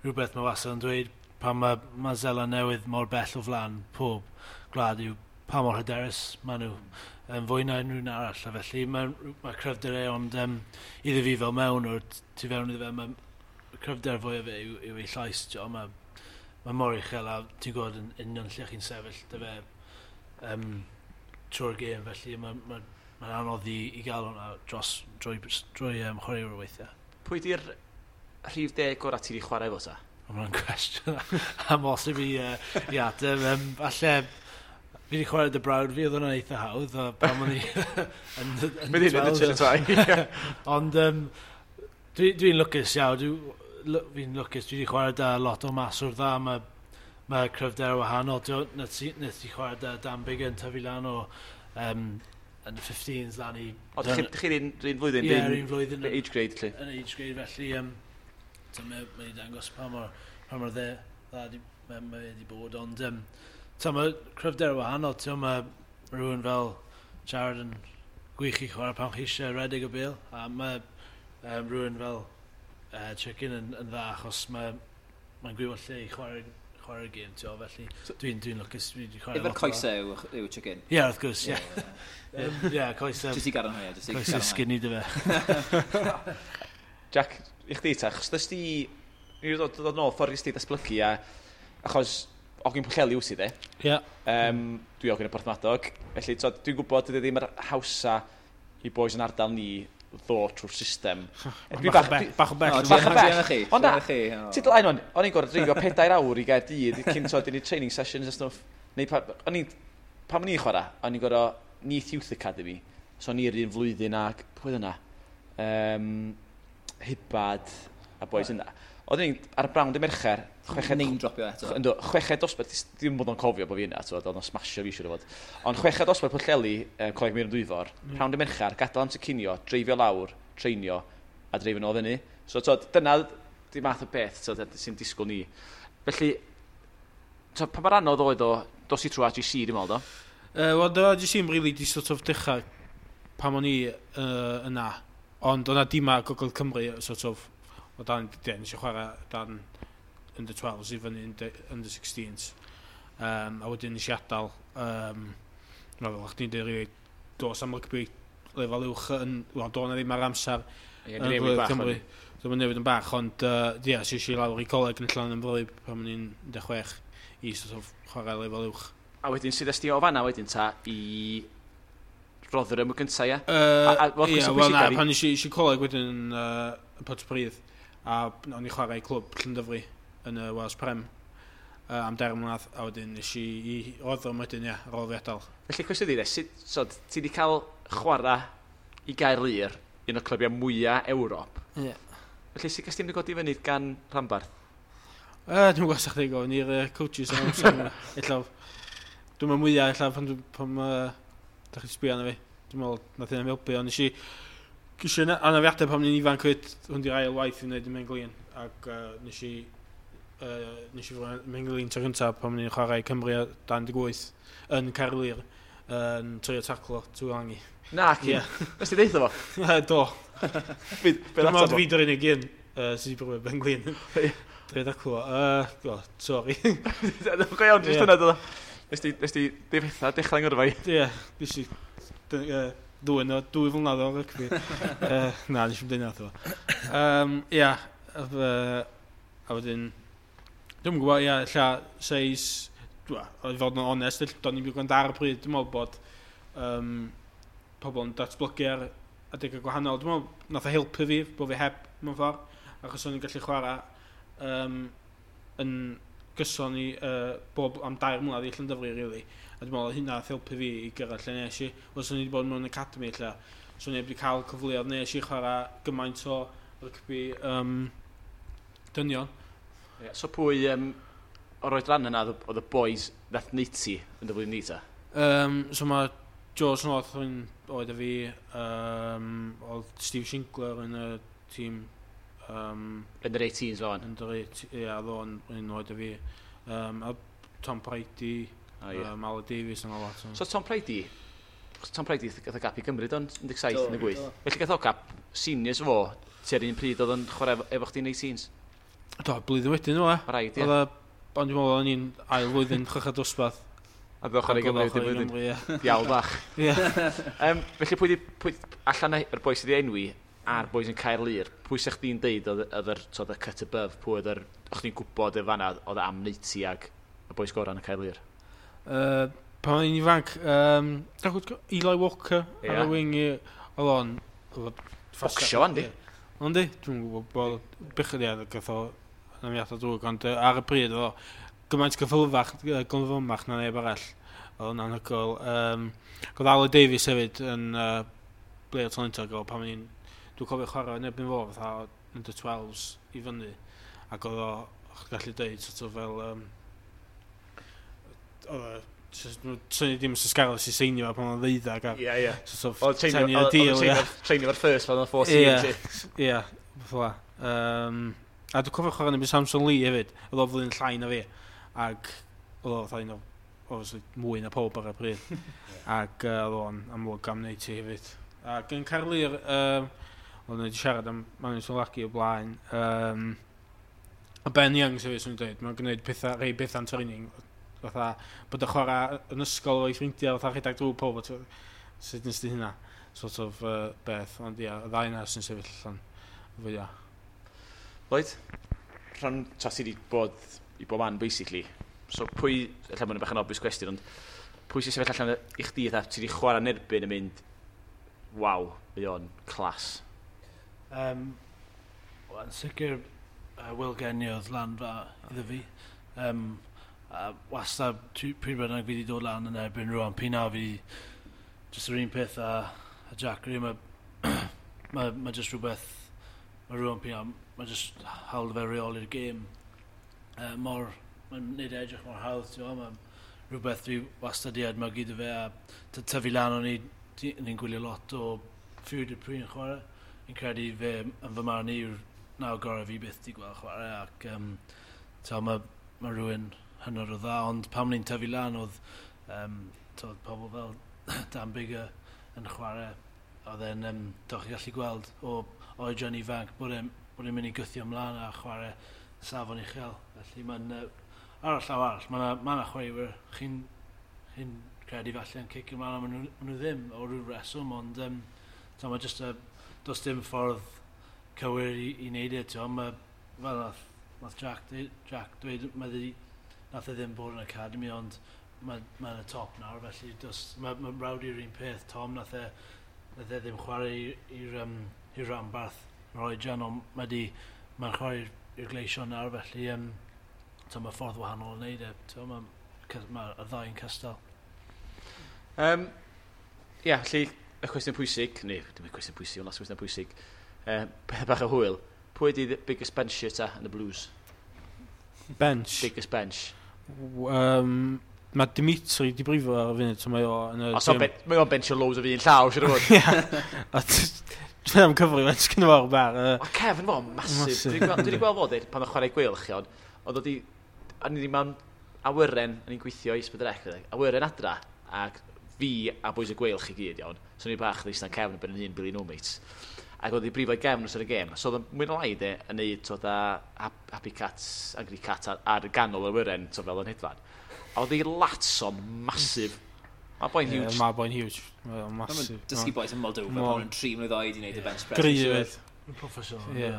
rhywbeth mae wastad yn dweud pan mae Seland Newydd mor bell o flaen pob gwlad yw pa mor hyderus maen nhw yn fwy na unrhyw un arall, a felly mae cryfder e, ond iddo fi fel mewn o'r tu fewn iddo fe, mae cryfder fwyaf fe yw ei llais, mae mor uchel a ti'n gwybod yn union lle chi'n sefyll dy fe trwy'r gêm, felly mae'n anodd i gael hwnna dros drwy chwaraewyr weithiau. Pwy di'r rhif 10 gorau ti wedi chwarae efo ta? Mae hwnna'n cwestiwn amhosib i ateb. Falle fi wedi chwarae dy brawd fi, oedd hwnna'n eitha hawdd, a pan o'n i yn Mynd i'n mynd y. Ond dwi'n lwcus iawn, fi'n lwcus, dwi wedi chwarae da lot o maswr dda, mae cryfder wahanol. Nes i chwarae da Dan Biggin, tyfu lan o yn y 15s lan i... O, chi'r un flwyddyn? Ie, yr un flwyddyn. Age grade, lle? Yn age grade, felly mae wedi dangos pa mor dda mae wedi bod, ond mae cryfder wahanol, mae rhywun fel Jared yn gwych i chwarae pan chi eisiau redeg y bêl, a mae rhywun fel Chicken yn dda achos mae'n gwybod lle i chwarae'r gêm, felly dwi'n lwcus, dwi wedi chwarae lot. Efo'r coesau yw Chicken? Ie, wrth gwrs, ie. Ie, coesau. Jyst i gadarnhau, jyst i gadarnhau. Coesau skinny dy fe. Jack, i chdi ta, achos dys ti, ni wedi dod nôl ffordd i chdi datblygu, a achos ogyn Pwllheli wyt ti de? Ie. Dwi ogyn y Porthmadog, felly dwi'n gwybod dydy ddim yr hawsa i boys yn ardal ni ddod trwy'r system. Bach o bell. Bach o bell. Ond na, ti dlaen o'n, o'n i'n gorfod dreifio 4 awr i Gaerdydd cyn i ni training sessions a stwff. Neu pan o'n i'n chwarae, o'n i'n gorfod Neath Youth Academy, so o'n i'r un flwyddyn ag, pwy oedd yna? Hibad a boys yna. Oedden ni'n ar y brawn dy Mercher, chweched... Name dropio eto. Ynddo, chweched dosbarth, ddim bod o'n cofio bod fi yna, oedd o'n smasho fi siŵr o fod. Ond chweched dosbarth Pwllheli, Coleg Meirion Dwyfor, prawn dy Mercher, gadael amser cinio, dreifio lawr, treinio, a dreifio nôl fyny. So, dyna di math o beth sy'n disgwyl ni. Felly, pa mor anodd oedd o, dos i trwy AGC, dwi'n meddwl, do? Wel, do AGC yn really di sort of dechrau pan o'n i yna. Ond o'na dima Gogledd Cymru, sort of, o dan, nes i chwarae dan under 12s i fyny under 16s. A wedyn nes i adael, fel o'ch ti'n dweud, really, dos am rygbi lefel uwch yn, wel, do na ddim ar amser yn Gogledd Cymru. So mae'n newid yn bach, ond ie, yeah, es i lawr i coleg yn Llanymddyfri pan o'n i'n 16 i sort of chwarae lefel uwch. A wedyn, sydd esti o fanna wedyn ta i Rotherham y gyntaf, ie? Ie, wel na, pan nes i coleg wedyn yn Pontypridd, a o'n i chwarae i clwb Llandyfri yn y Wales Prem am 3 mlynedd, a wedyn nes i Rotherham wedyn, ie, ar ôl fi adael. Felly, cwestiwn i, sut, so, ti wedi cael chwarae i Gaerlŷr, un o'r clybiau mwyaf Ewrop. Ie. Felly, sut gas ti'n godi fyny gan rhanbarth? Dwi'n gwybod sa'ch chi'n gofyn i'r coaches am amser. Ella, dwi'n meddwl mwyaf, ella pan da chi'n sbio arno fi. Dwi'n meddwl, nath hynny'n helpu, ond nes i anafiadau pan o'n i'n ifanc fyd, hwn di'r ail waith i wneud y Menglin, ac nes i fod Menglin tro cyntaf pan o'n i'n chwarae Cymru dan 18 yn Caerlŷr, yn trio taclo Tuilagi. Na, ci. Nes ti deitha fo? Do. Dwi'n meddwl fi dy'r unig un sydd wedi brifo Menglin. Trio taclo. Sorry. Go iawn, jyst yna, do. Nes ti difetha dechrau ngyrfa i? Ie, nes i ddwyn o 2 flynedd o rygbi. Na, nes i'm deud nath o. Ie, a wedyn, dwi'n gwybod, ie, ella seis, i fod yn onest, do'n i'n gwrando ar y pryd, dwi'n meddwl bod pobl yn datblygu ar adegau gwahanol. Dwi'n meddwl nath o helpu fi, bod fi heb mewn ffordd, achos o'n i'n gallu chwarae yn gyson i bob am 3 mlynedd i Llandyfri, really. A dwi'n meddwl hynna nath helpu fi i gyrraedd lle nes i. Wel, swn i wedi bod mewn academy lle, swn i wedi cael cyfleoedd nes i chwarae gymaint o rygbi dynion. Yeah, so pwy o'r oedran yna oedd y boys nath neud ti yn dy flwyddyn ni ta? So mae George North yn oed a fi, oedd Steve Shinkler yn y tîm. Yn yr 18s o'n? Yn yr 18, ie, oedd o'n un oed a fi. A Tom Prydie, Aled Davies yn lot. So Tom Prydie gath o gap i Gymru do'n 17 yn y 8. Felly gath o gap seniors fo, tua'r un pryd oedd yn chwarae efo chdi'n 18s? Do, blwyddyn wedyn nhw, e. Rhaid, ie. Ond dwi'n meddwl o'n i'n ail flwyddyn chweched dosbarth. A ddod chwarae i Gymru wedyn blwyddyn. Diawl bach. Felly pwy, pwy allan yr boi sydd wedi enwi a'r boys yn Caerlŷr, pwy sa'ch chdi'n deud oedd yr, oedd y cut above, pwy oedd yr, o'ch chdi'n gwybod y fanna oedd am neud ti ag y boys gorau yn y Caerlŷr? Pan o'n i'n ifanc, Eli Walker ar y wing, oedd o'n Bocsio fan, di? Ond di, dwi'n gwybod bod bechod ia, gath o anafiadau drwg, ond ar y pryd oedd o gymaint gyffylfach, gyflymach na neb arall. Oedd o'n anhygoel. Oedd Aled Davies hefyd yn player talentog o pan o'n i'n... Dwi'n cofio chwarae yn erbyn fo fatha under 12s i fyny. Ac oedd o, o'ch gallu deud, sort of fel... Oedd o, syni dim sy'n Scarlets i seinio pan o'n ddeuddag a Ie, ie. Sort of 10 year deal, ie. Treinio fo'r first pan o'n 14. Ie, ie, fatha. A dwi'n cofio chwarae yn erbyn Samson Lee hefyd, oedd o flwyddyn llai na fi. Ac oedd o fatha un o, obviously, mwy na pob ar y pryd. Ac oedd o'n amlwg am wneud ti hefyd. Ac yn Caerlŷr, o'n wedi siarad am Manu Taulagi o blaen. A Ben Young, sef swn i'n dweud, mae'n gwneud pethau, rhai pethau'n training. Fatha, bod y chwarae yn ysgol o'i ffrindiau, fatha rhedeg drwy pob, sut nes di hynna? Sort of beth, ond ia, y ddau yna sy'n sefyll allan fwyaf. Lloyd, rhan, ta ti wedi bod i bob man, basically. So pwy, ella mae'n bach yn obvious question, ond pwy sy'n sefyll allan i chdi, fatha, ti wedi chwarae yn erbyn yn mynd, waw, mae o'n class. Wel, yn sicr, Will Genia oedd lan fa iddo fi. A wastad, pryd bynnag fi wedi dod lan yn erbyn Ruan Pienaar, fi just yr un peth a Jack Green, mae just rhywbeth, mae Ruan Pienaar, mae just hawl fe reoli'r gêm. Mor, mae'n neud e edrych mor hawdd, ti'n gwbod, mae rhywbeth dwi wastad i edmygu iddo fe, a tyfu lan o'n i'n gwylio lot o Fourie du Preez yn chwarae. Fi'n credu fe yn fy marn i yw'r naw gorau fi byth di gweld chwarae, ac mae rhywun hynod o dda, ond pan o'n i'n tyfu lan oedd t'od, pobl fel Dan Biggar yn chwarae, oedd e'n, doch chi gallu gweld o oedran ifanc bod e'n mynd i gwthio ymlaen a chwarae safon uchel. Felly mae'n, ar y llaw arall, mae yna ma chwaraewyr chi'n credu falle yn cicio ymlaen, a ma nhw ddim o ryw reswm, ond t'o, mae just does dim ffordd cywir i wneud e, t'o, mae, fel nath Jack dweud, nath e ddim bod yn academy, ond mae yn y top nawr, felly mae Rowdy yr un peth, Tom, nath e ddim chwarae i'r rhanbarth yr oedran, ond mae'n chwarae i'r Gleision nawr, felly t'o, mae ffordd wahanol o wneud e, t'o, mae y ddau yn cystal. Ie, felly, y cwestiwn pwysig, neu dim y cwestiwn pwysig, ond las cwestiwn pwysig, peth bach o hwyl, pwy ydi the biggest bench ta yn y Blues? Bench. Biggest bench. Mae Dimitri di brifo ar y funud, so mae o yn y Os o'n gym. Mae o'n benchio loads o fi yn llaw, siwr o fod. Ie. A Dwi'n am cyfri, mae'n sgynno fo ar y bar. Mae Kevin fo, massive. Massive. Dwi wedi gweld fo, dweud, pan o'n chwarae Gweilch, iawn, oedd o di, a ni wedi mewn awyren, o'n i'n gweithio i Sbydrec, awyren adra, ac fi a boys y Gweilch i gyd, iawn. So ni bach yn eistedd cefn yn ben yn hun, Billy No Mates. Ac oedd i brifo i gefn wrth y gêm. So oedd o'n mwy na lai de, yn neud twod a Happy Cats, Angry Cat ar ganol yr awyren, so fel yn hedfan. A oedd ei lats o'n massive. Mae boi'n huge. Mae boi'n huge. Mae o'n massive. Dysgu boys yn Moldova pan nhw'n 3 mlwydd oed i wneud y bench press. Gry hefyd. Professional. Ie.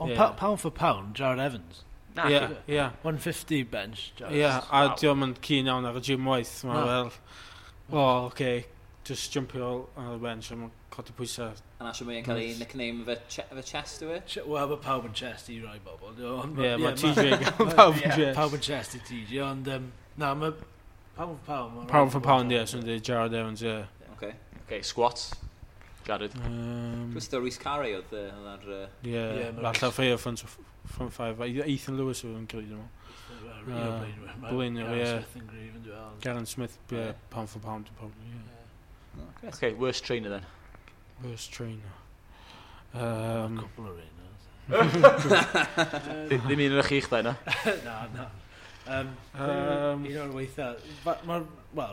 Ond pound for pound, Jared Evans. Na, Ie, ie. 150 bench, Jared. Ie, a diolch yn keen iawn ar y gym waith. Mae Na. fel, oh, okay, just jumpio ar y bench a mae'n codi pwysau. A na siwr mae'n cael ei nickname fe chest yw e? Wel, mae pawb yn chest i rai bobl. Ond Ie, mae TJ gael pawb yn chest. Pawb yn chest i TJ, ond na, mae pound for pound. Ma' Pound raid for i pound, bod ie, swn i'n dweud Jared Evans, ie. Okay. Okay, squats. Jared. Dwi'n dweud Rhys Carey oedd ar Ie, Ie, ma' falle ffeio front five. Ethan Lewis oedd yn gryf, dwi'n meddwl. Un o blaenwyr. Ma' Blaenwyr, Garen ie. Smith yn gryf yn dweud. Garen Smith, ie, Ie. pound for pound, probably, ie. Oh, great. Okay, worst trainer then. Worst trainer. Cwpl o reina. Ddim un o'r chi'ch dau, na? Na. Un o'r weitha. Wel,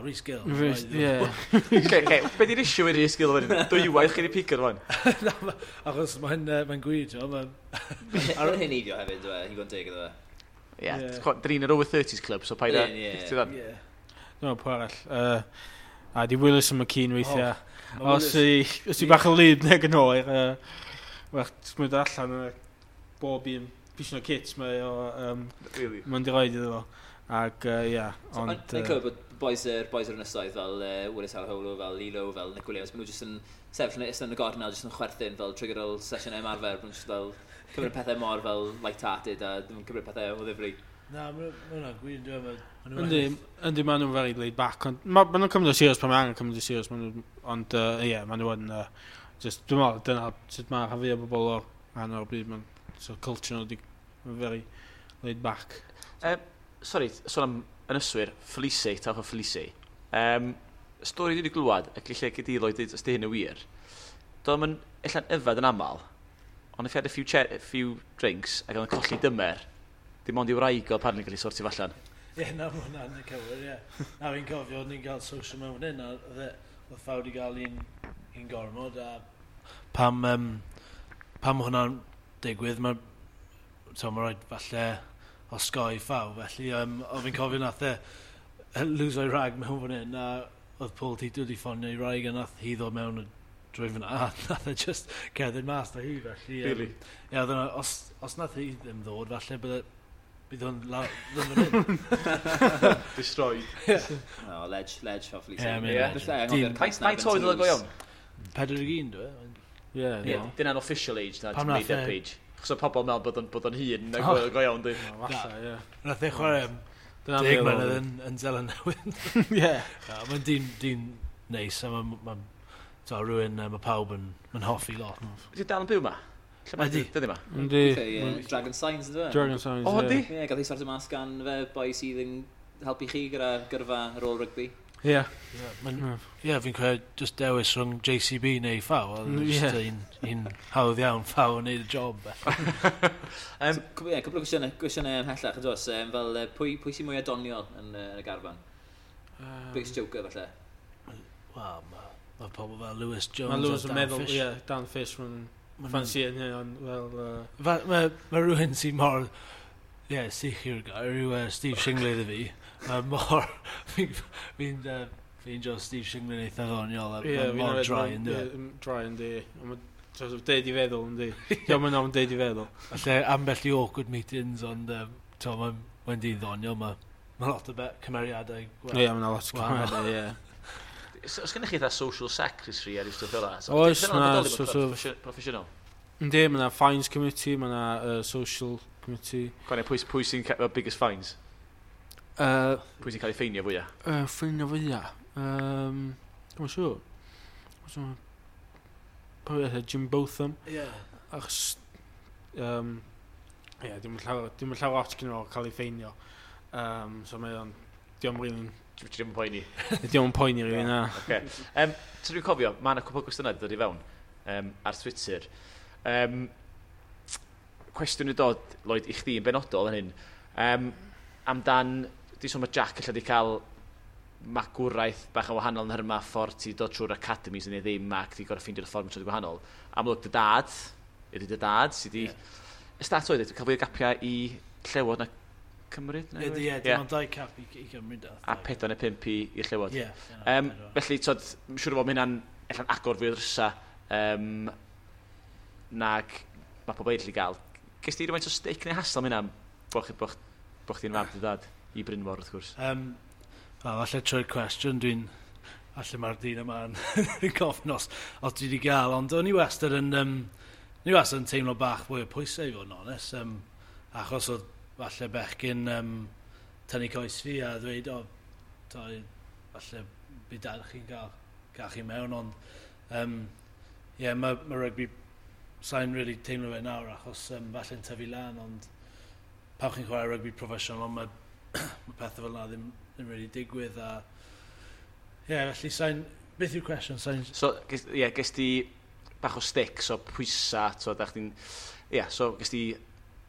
Rhys Gill. Rhys, ie. Okay, be di'r issue i Rhys Gill fan hyn? Dwywaith chi wedi pigo fan? Na, achos mae'n gwir, ti'n gwbod, Mae'n heneiddio hefyd, dwi e, i fod yn deg iddo fe. Ie, Ie. dyn ni'n yr over 30s club, so paid â Ie, ie. Ti'n dda? Ie. Dwi'n meddwl pwy arall. A di Willis yn McKean weithiau. Oh, os i bach o lyd neu yn oer, well, ti'n allan yn bob un pisio kits mae o, really? Mae'n di roed iddo fo. Ac, ie, ond... Dwi'n clywed bod boys yr ynysoedd fel Willis Halaholo, fel Lilo, fel Nick Williams, maen nhw jyst yn sefyll yn y gornel, jyst yn chwerthin fel trwy gydol sesiwn ymarfer, maen nhw jyst fel cymryd pethau mor fel light-hearted a ddim yn cymryd pethau o ddifri. Na, mae hwnna'n gwir, dwi'n meddwl. Yndi, maen nhw'n very laid back, ond maen nhw'n cymryd o serious pan mae angen cymryd o serious, ond ie, maen nhw yn, just, dwi'n meddwl, dyna sut mae rhan fwy o bobl o'r rhan o'r byd, maen, so culture nhw di, very laid back. Sorry, sôn am ynyswyr, Felice, tawch o Felice. Stori dwi wedi glwad, ac lle gyda Lloyd dweud os di hyn yn wir, doedd o'n ella'n yfed yn aml, ond if he had a few drinks ac oedd yn colli dymer, dim ond i wraig o apparently gallu sortio allan. Ie, na, mae hwnna'n y cywir, ie. Na, fi'n cofio, ni'n cael social mewn fan hyn, a oedd Fawd wedi cael un gormod, a pam hwnna'n digwydd, mae rhaid falle osgoi Ffaw, felly o fi'n cofio nath e lwso'i rag mewn fan hyn, a oedd Paul Tito wedi ffonio i wraig a nath hi ddod mewn drwy fyna, a nath e just cerdded mas da hi, felly... Really? Ie, oedd yna, os nath hi ddim ddod, falle bydd hwn ddim fan hyn. Destroyed. Yeah. No, ledge, Ffaw Felice. Ie, legend. Faint oed oedd o go iawn? 41, dwi. Ie, dyna'n official age na, made up age. Chos o pobl meddwl bod o'n hŷn na go iawn, di. Falle, ie. Nath e chwarae 10 mlynedd yn Seland Newydd. Ie. Mae'n dyn neis, a mae'n rhywun, mae pawb yn hoffi lot. Ydy dal yn byw ma? Ydy. Dydy ma? Ydy. Dragon Signs, ydy? Dragon Signs, ie. O, ydy? Ie, gath ei sortio mas gan fe boi sydd yn helpu chi gyda gyrfa ar ôl rygbi. Ie. Ie, fi'n credu just dewis rhwng JCB neu Ffaw. Just un hawdd iawn, Ffaw yn neud y job. Ie, cwpl o gwestiynau ymhellach, yn does, fel pwy sy'n mwy adoniol yn y garfan? Biggest joker, falle? Wel, mae pobl fel Lewis Jones a Dan meddwl, Fish. Ie, Dan Fish, mae'n ffansi yn hyn, ond fel... Mae rhywun sy'n mor... Ie, sych yw'r gair, yw Steve Shingley iddo fi. Mae mor... Fi'n ffeindio Steve Shingley'n eitha ddoniol. Ie, mor dry yn dwi. Dry yn di. Mae'n sort of deud i feddwl yn di. Diolch yn deud i feddwl. Falle ambell i awkward meetings, ond mae'n dyn ddoniol. Mae lot o cymeriadau. Ie, mae'n lot o cymeriadau, ie. Os gennych chi eitha social secretary ar ystod fel 'na? Oes, na, sort of... Proffesiynol? Yndi, mae yna fines committee, mae yna social committee. Gwanio, pwy sy'n cael biggest fines? Pwy sy'n cael ei ffeinio fwyaf? Ffeinio fwyaf? Dwi'n siŵr. Pwy oedd Jim Botham. Ie. Achos, ie, dim yn llawer lot gyda fo cael ei ffeinio. So mae o'n, diolch yn Ti'n ddim yn poeni? Diolch yn poeni rhywun, na. Oce. So dwi'n cofio, mae yna cwpl o gwestiynau wedi dod i fewn ar Twitter. Cwestiwn i dod, Lloyd, i chdi yn benodol yn hyn. Amdan, di sôn mae Jack allan di cael magwraeth bach yn wahanol yn hyrma ffordd ti dod trwy'r academies neu ddim ac ti gorau ffeindio'r ffordd mewn gwahanol. Amlwg dy dad, ydy dy dad, sydd di... Y stat oedd, cael fwy o gapiau i Llewod na Cymru? Ie, dim ond 2 cap i Cymru da. A 4 neu 5 i'r Llewod. Ie. Felly, tod, siŵr o fod mae hynna'n allan agor fwy o ddrysa nag mae pobl eraill i gael. Ges ti rhywfaint o stick neu hassle am hynna bo chdi'n fab dy dad i Brynmor, wrth gwrs? Wel, falle trwy'r cwestiwn, falle mae'r dyn yma'n gofyn os dwi wedi gael, ond o'n i wastad yn, teimlo bach fwy o pwysau i fod yn onest, achos oedd falle bechgyn tynnu coes fi a ddweud, o, falle bydd dad chi'n gael chi mewn, ond ie, mae rygbi, sa'n really teimlo fe nawr achos falle'n tyfu lan, ond pan chi'n chwarae rygbi proffesiynol, mae pethau fel yna ddim really digwydd a... Ie, yeah, felly sa'n... Beth yw'r cwestiwn? Sa'n... So, ie, yeah, ges ti bach o stick, so pwysa, so da chdi'n... Ie, yeah, so ges ti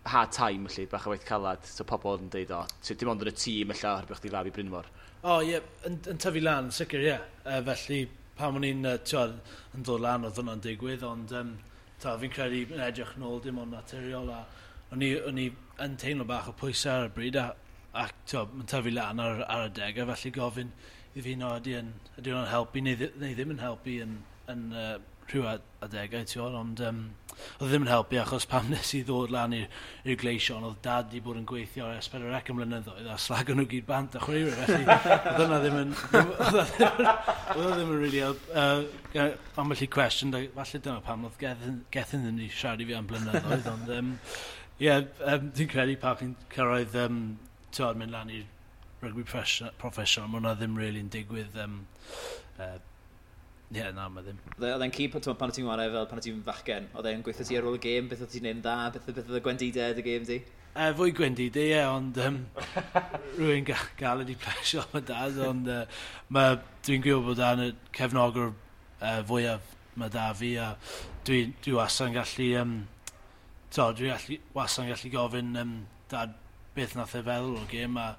hard time, felly, bach o waith calad, so pobl yn deud, o, dim ond yn y tîm, ella, oherwydd chdi fab i Brynmor. O, ie, yeah, yn tyfu lan, sicr, ie. Yeah. Felly, pan o'n i'n yn dod lan, oedd hwnna'n digwydd, ond fi'n credu yn edrych nôl dim ond naturiol, a o'n i yn teimlo bach o pwysau ar y bryd, a Ac mae'n tyfu lan ar adegau, felly gofyn i fi no, ydy hwnna'n helpu neu ddim yn helpu yn rhyw adegau, ti'n gwybod, ond oedd ddim yn helpu achos pam nes i ddod lan i'r Gleision, oedd dad di bod yn gweithio ar S4C am blynyddoedd a slago nhw gyd bant a chwaraewyr, felly oedd hwnna ddim yn oedd ddim yn really help. Ambell i cwestiwn, falle dyna pam oedd Gethin ddim wedi siarad i fi am blynyddoedd, ond dwi'n credu pan chi'n cyrraedd ti'n mynd lan i'r rugby professional, mae hwnna ddim really yn digwydd. Na, mae ddim. Oedd e'n key pan oedd ti'n chwarae fel pan oedd ti'n fachgen? Oedd e'n gweithio ti ar ôl y gêm? Beth oedd ti'n neud yn dda? Beth oedd y gwendidau y gêm di? Fwy gwendidau, ie, ond rwy'n galed i plesio am y dad, ond dwi'n gwybod bod dan y cefnogwr fwyaf mae da fi, a dwi wastad yn gallu, dwi wastad yn gallu gofyn dad beth nath e feddwl o'r gêm, a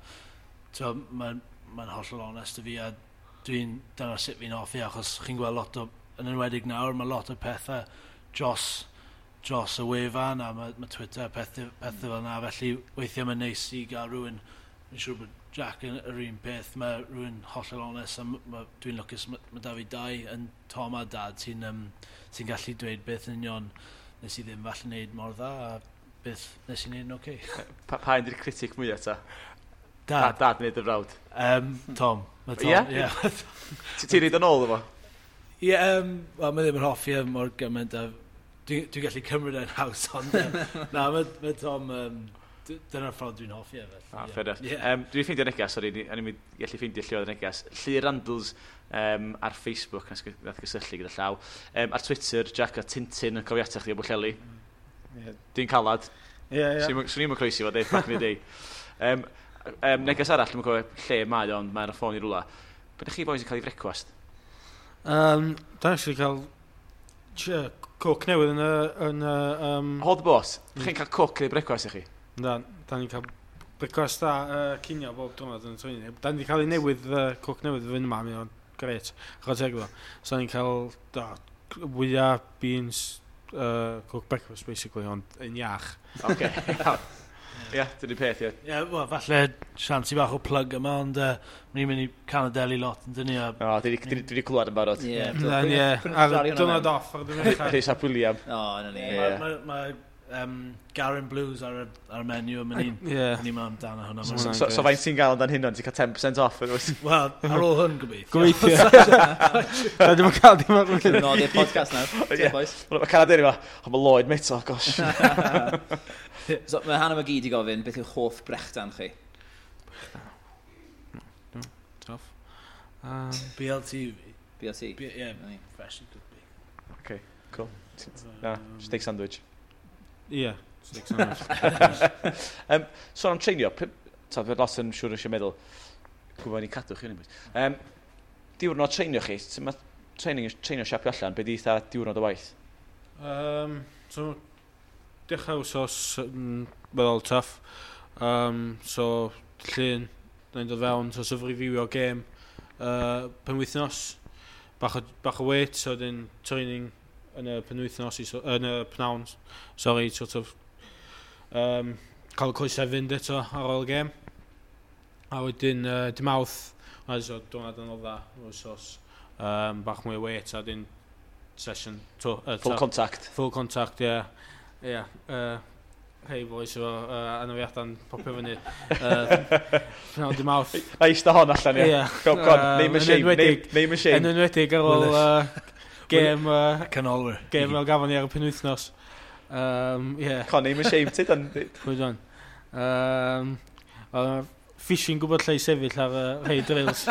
mae'n hollol onest i fi, a dyna sut fi'n hoffi, achos chi'n gweld lot o, yn enwedig nawr, mae lot o pethau dros y wefan, a mae Twitter, pethau fel yna, felly weithiau mae'n neis i gael rhywun, fi'n siŵr bod Jack yn yr un peth, mae rhywun hollol onest, a dwi'n lwcus, mae da fi dau yn Tom a Dad sy'n gallu dweud beth yn union nes i ddim falle wneud mor dda, a beth nes i wneud yn oce. Pa un di'r critic mwyaf ta? Dad. Dad neu dy frawd? Tom. Mae Tom, ie. Ti'n reid yn ôl efo? Ie, wel, mae ddim yn hoffi e mor gymaint a dwi'n gallu cymryd e'n haws, ond na, mae Tom, dyna'r ffordd dwi'n hoffi e, felly. Ah, fair enough. Yeah. Dwi'n ffeindio neges, sori, o'n i'n gallu ffeindio lle oedd y neges. Llyr Randalls ar Facebook, nath gysylltu gyda llaw. Ar Twitter, Jack a Tintin yn cofio atach chdi o Bwllheli. Yeah. Dwi'n calad. Ie, ie. Swn i'm yn croesi fo, deud, back in the day. Neges arall, dwi'n cofio lle mae, ond mae'n y ffôn i rwla. Be ydych chi boys yn cael ei frecwast? Da actually cael coke newydd yn y Hold the boss, chi'n cael coke neu brecwast i chi? Da, da ni'n cael brecwast a cinio bob diwrnod yn y training. Da ni wedi cael ei newydd, coke newydd fynd yma, mae'n gret, chwarae teg iddo. So da ni'n cael wyau, beans, coke breakfast basically, ond yn iach. Oce, iawn. Ie, dyna'r peth, ie. Ie, wel, falle siansi bach o plug yma, ond ni'n mynd i Canadeli lot, yn dyn ni. O, dwi wedi clywed yn barod. Ie, ie. Ar diwrnod off, ar diwrnod off. Rhys ap William. O, na ni. Mae Garen Blues ar y menu, a ni'n mynd amdano hwnna. So faint ti'n gael amdan hynna, ti'n cael 10% off? Wel, ar ôl hwn, gobeithio. Gobeithio. Da ddim yn cael dim ar ôl. Nodi'r podcast nawr. Mae Canadeli yma, ond mae Lloyd, mate, oh gosh. So, mae Hannah McGee di gofyn, beth yw hoff brechdan chi? Brechdan? Tough. BLT fi. BLT? Ie, freshly cooked bacon. Okay, cool. Na, steak sandwich. Ie, steak sandwich. Sôn am treinio, ta, lot yn siŵr eisiau meddwl, gwybod ni'n cadw chi, diwrnod treinio chi, mae treinio siapio allan, be di eitha diwrnod o waith? So, dechrau wsos weddol tough. So, llun, da ni'n dod fewn, so sort of reviewio gêm penwythnos, bach o weight, so dyn training yn y penwythnos, yn y pnawn, sorry, sort of cael y coesau fynd eto ar ôl y gêm. A wedyn, dy Mawrth, so diwrnod yn odda, wsos, bach mwy o weight, a dyn session. Full contact. Full contact, ie. Yeah. Yeah, hey boys, efo anafiadau'n popio fyny. Pnawn dy Mawrth. Na eista hon allan, ie. Go on, name a shame, name a shame. Yn enwedig ar ôl gêm... Canolwyr. Gêm fel gafon ni ar y penwythnos. Yeah. Con, name a shame, ti dan. Pwy dan. Fishing gwybod lle i sefyll ar rhai drills.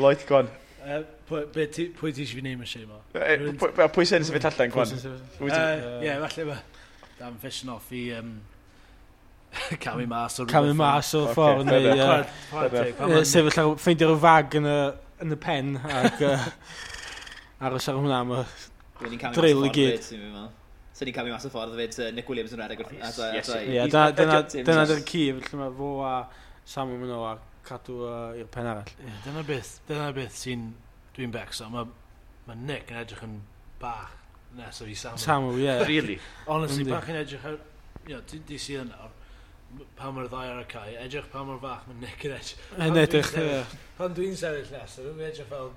Lloyd, go on. Pwy ti eisiau fi name a shame o? Pwy sy'n sefyll allan, Gwan? Ie, falle mae Dan fishing off i camu mas o'r camu mas o'r ffordd neu sefyll ar ffeindio rhyw fag yn y pen ac aros ar hwnna am y drill i gyd. So ni'n camu mas o'r ffordd hefyd, Nick Williams yn rhedeg wrth. Ie, dyna dy'r ci, felly mae fo a Samuel Mano a cadw i'r pen arall. Yeah, dyna beth sy'n dwi'n becso. Mae Nick yn edrych yn bach nesaf i Samuel. Samuel, ie. Yeah. Really? Honestly, bach yn edrych ar... You know, di sydd nawr. pan mae'r ddau ar y cae, edrych pa mor fach mae Nick yn edrych. Yn edrych, ie. Pan dwi'n sefyll nesaf, dwi'n edrych fel,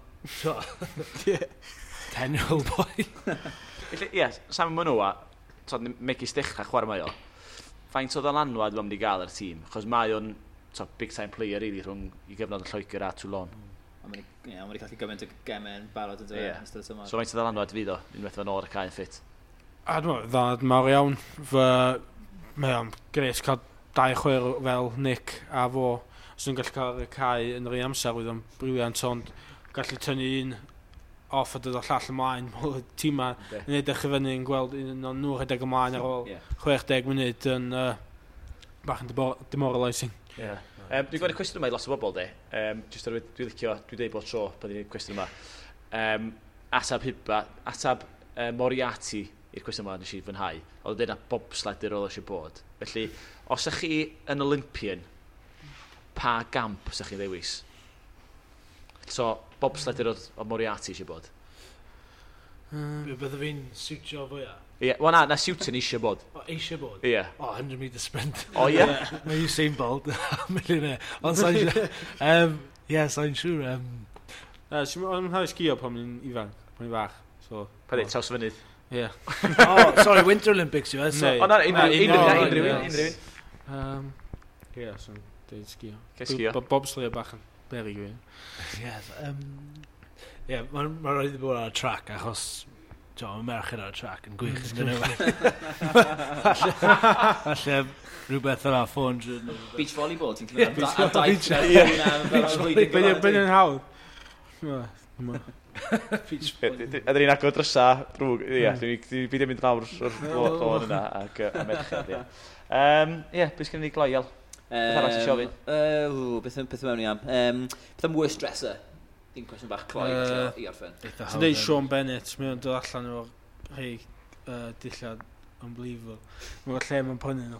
10-year-old boy. Felly, ie, Sam Manoa, megis dechrau chwarae mae o. Faint o ddylanwad mae'n mynd i gael ar y tîm? Achos mae o'n big time player really rhwng i gyfnod yn Lloegr a Toulon. A mae'n wedi colli gymaint o gemau yn barod yn dweud yn ystod y tymor. So faint o ddylanwad fydd o, unwaith fo'n ôl y cae yn ffit? A dwi'n meddwl, ddylanwad mawr iawn. Mae o'n gres cael dau chwer fel Nick a fo. Os nhw'n gallu cael y cae yn yr un amser, oedd o'n briliant, ond gallu tynnu un off a dod o llall ymlaen. Mae'r tîm ma yn edrych i fyny yn gweld un o'n nhw rhedeg ymlaen ar ôl 60 munud yn bach yn demoralising. Yeah. Dwi'n gweld y cwestiwn yma i lot o bobl, de. Just dwi'n licio, dwi'n deud bob tro pan dwi'n cwestiwn yma. Atab Hiba, atab Moriarty i'r cwestiwn yma nes i fwynhau. Oedd o'n deud na bobsledder oedd eisiau bod. Felly, os ych chi yn Olympian, pa gamp ych chi'n ddewis? So, bobsledder oedd Moriarty eisiau bod. Bydde fi'n siwtio fwyaf? Ie, yeah, wel na siwtio'n eisiau bod. O, eisiau bod? Ie. Yeah. O, 100 metre sprint. O, ie? Mae Usain Bolt, millionaire. Ond sa'n siŵr. Ie, sa'n siŵr. O'n mwynhau sgio pan o'n ifanc, pan o'n fach. So, pa dweud, traws fynydd? Ie. Oh, sorry, Winter Olympics yw e. O, na, unrhyw un. Ie, so'n dweud sgio. Sgio. Bobsleigh bach yn beryg i fi. Ie, mae'n rhaid i bod ar y track achos mae merched ar y track yn gwych. Falle rhywbeth yna, 400. Beach volleyball, ti'n clywed? A daith. Beth yn hawdd? Beach volleyball. A dyn ni'n agor drysa drwg. Ie, dwi'n byd yn mynd lawr o'r lôn yna ac y merched, ie. Ie, beth sgen i gloi, Iel? Beth arall ti ofyn? Beth mewn i am? Beth am worst dresser? Dim cwestiwn bach cloi i orffen. Ti'n dweud Sean Bennett, mae o'n dod allan o'r rhai dillad unbelievable. Mae'n lle mae'n prynu nhw.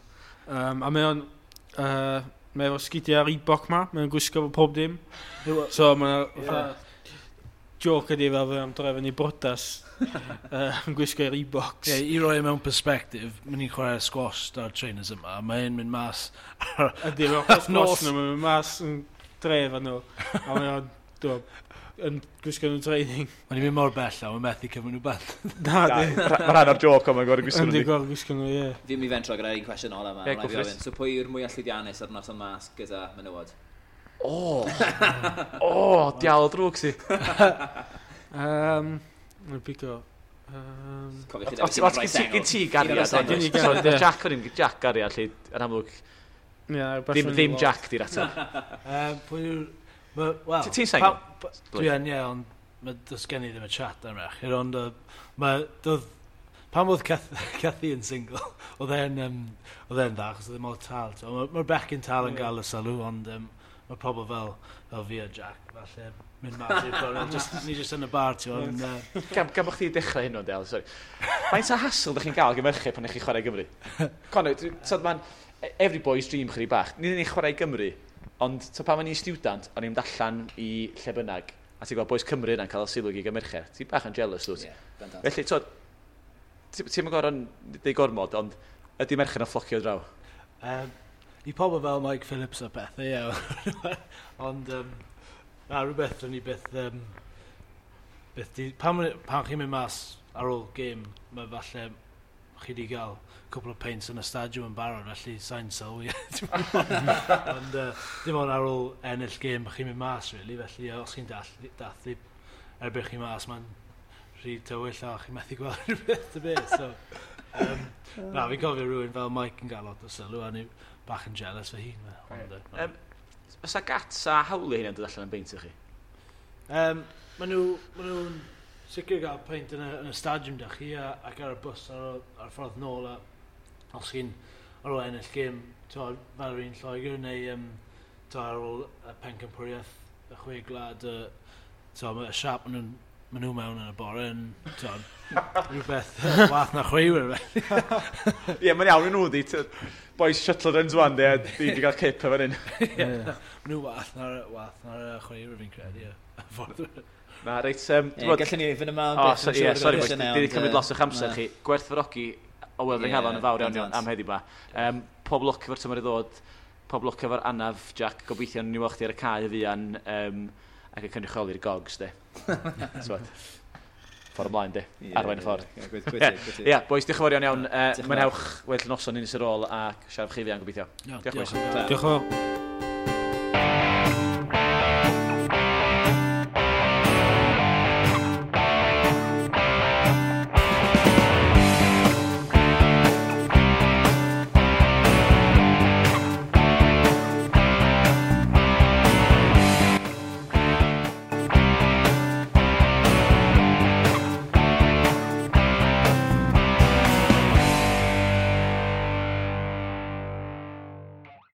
A mae o'n mae efo sgidiau Reebok ma, mae o'n gwisgo fo pob dim. So mae'n joke ydi fel fe am drefn i brodas yn gwisgo Reeboks. Yeah, i roi mewn perspective, mae'n ni'n chwarae squash da'r trainers yma, mae'n mynd mas ydy, mae'n chwarae squash nhw, mae'n mynd mas yn dref nhw. A mae o'n yn gwisgo nhw'n training. Mae'n i'n mynd mor bell a mae'n methu cymryd nhw bant. Na, di. Mae rhan o'r joke ond mae'n gorau gwisgo nhw. Yndi, gorau gwisgo nhw, ie. Fi'n mynd i fentro gyda un cwestiwn ola yma. Yeah, so pwy yw'r mwyaf llwyddiannus ar noson mas gyda menywod? O! O, diawl drwg si. Mae'n pigo. Gen ti gariad, ond Jack o'n i'n Jack gariad, lle yn amlwg ddim Jack di'r ateb. Pwy yw'r... Well, ti'n sengl? Dwi yn, ie, ond does gen i ddim y chat am merched, ond pan oedd Cathy yn single, oedd e'n dda, achos oedd e mor tal. Mae'r bechgyn tal yn gael y sylw, ond mae pobl fel fi a Jack, falle, mynd mas i'r gornel, ni jyst yn y bar, ti'n gwybod. Gan bod chdi dechrau hyn o'n del, sorry. Faint o hassle ydych chi'n gael gyda merched pan ydych chi'n chwarae Gymru? Conor, mae'n every boy's dream chydig bach. Ni ddim yn chwarae Gymru, ond so, pan o'n i'n student, o'n i'n mynd allan i lle bynnag, a ti'n gweld boys Cymru yna'n cael y sylw i merched. Ti'n bach yn jealous, dwyt? Yeah, felly, ti'n mynd gorfod deud gormod, ond ydy merched yn fflocio draw? I pobl fel Mike Phillips a pethau, ie. Ond, na, rhywbeth o'n i byth... Pan chi'n mynd mas ar ôl gêm, mae falle chi wedi gael cwpl o peints yn y stadiwm yn barod, felly sa'n sylwi. Ond dim ond ar ôl ennill gêm, chi'n mynd mas, really, felly os chi'n dathlu erbyn chi mas, mae'n rhy tywyll a chi'n methu gweld rhywbeth y beth. So, na, fi'n cofio rhywun fel Mike yn gael lot o sylw, a ni bach yn jealous fy hun. Ond, oes a Gats a hawliau hynny'n dod allan yn beint i chi? Maen nhw'n sicr gael peint yn y stadiwm da chi ac ar y bws ar y ffordd nôl a os chi'n ar ôl ennill gêm fel yr un Lloegr neu ar ôl y pencampwriaeth y chwe gwlad y siap maen nhw mewn yn y bore yn rhywbeth wath na chwaraewyr. Ie, mae'n iawn i nhw di. Boys shuttle runs wan di, a di wedi cael cip efo hyn. Ie, maen nhw wath na'r chwaraewyr fi'n credu, ie. Na, reit... Gallwn ni fynd yma... O, ie, sori, boys, di wedi cymryd lot o'ch amser chi. Gwerthfawrogi o weld yng nghalon yn fawr iawn am heddiw ma. Pob lwc efo'r tymor i ddod, pob lwc efo'r anaf, Jack. Gobeithio ni weld chdi ar y cae fuan ac yn cynrychioli'r Gogs, de. Ffordd ymlaen, de. Arwain y ffordd. Ie, boys, diolch yn fawr iawn iawn. Mwynhewch weddill noson un ar ôl a siarad chi fuan gobeithio. Diolch, boys. Diolch yn fawr.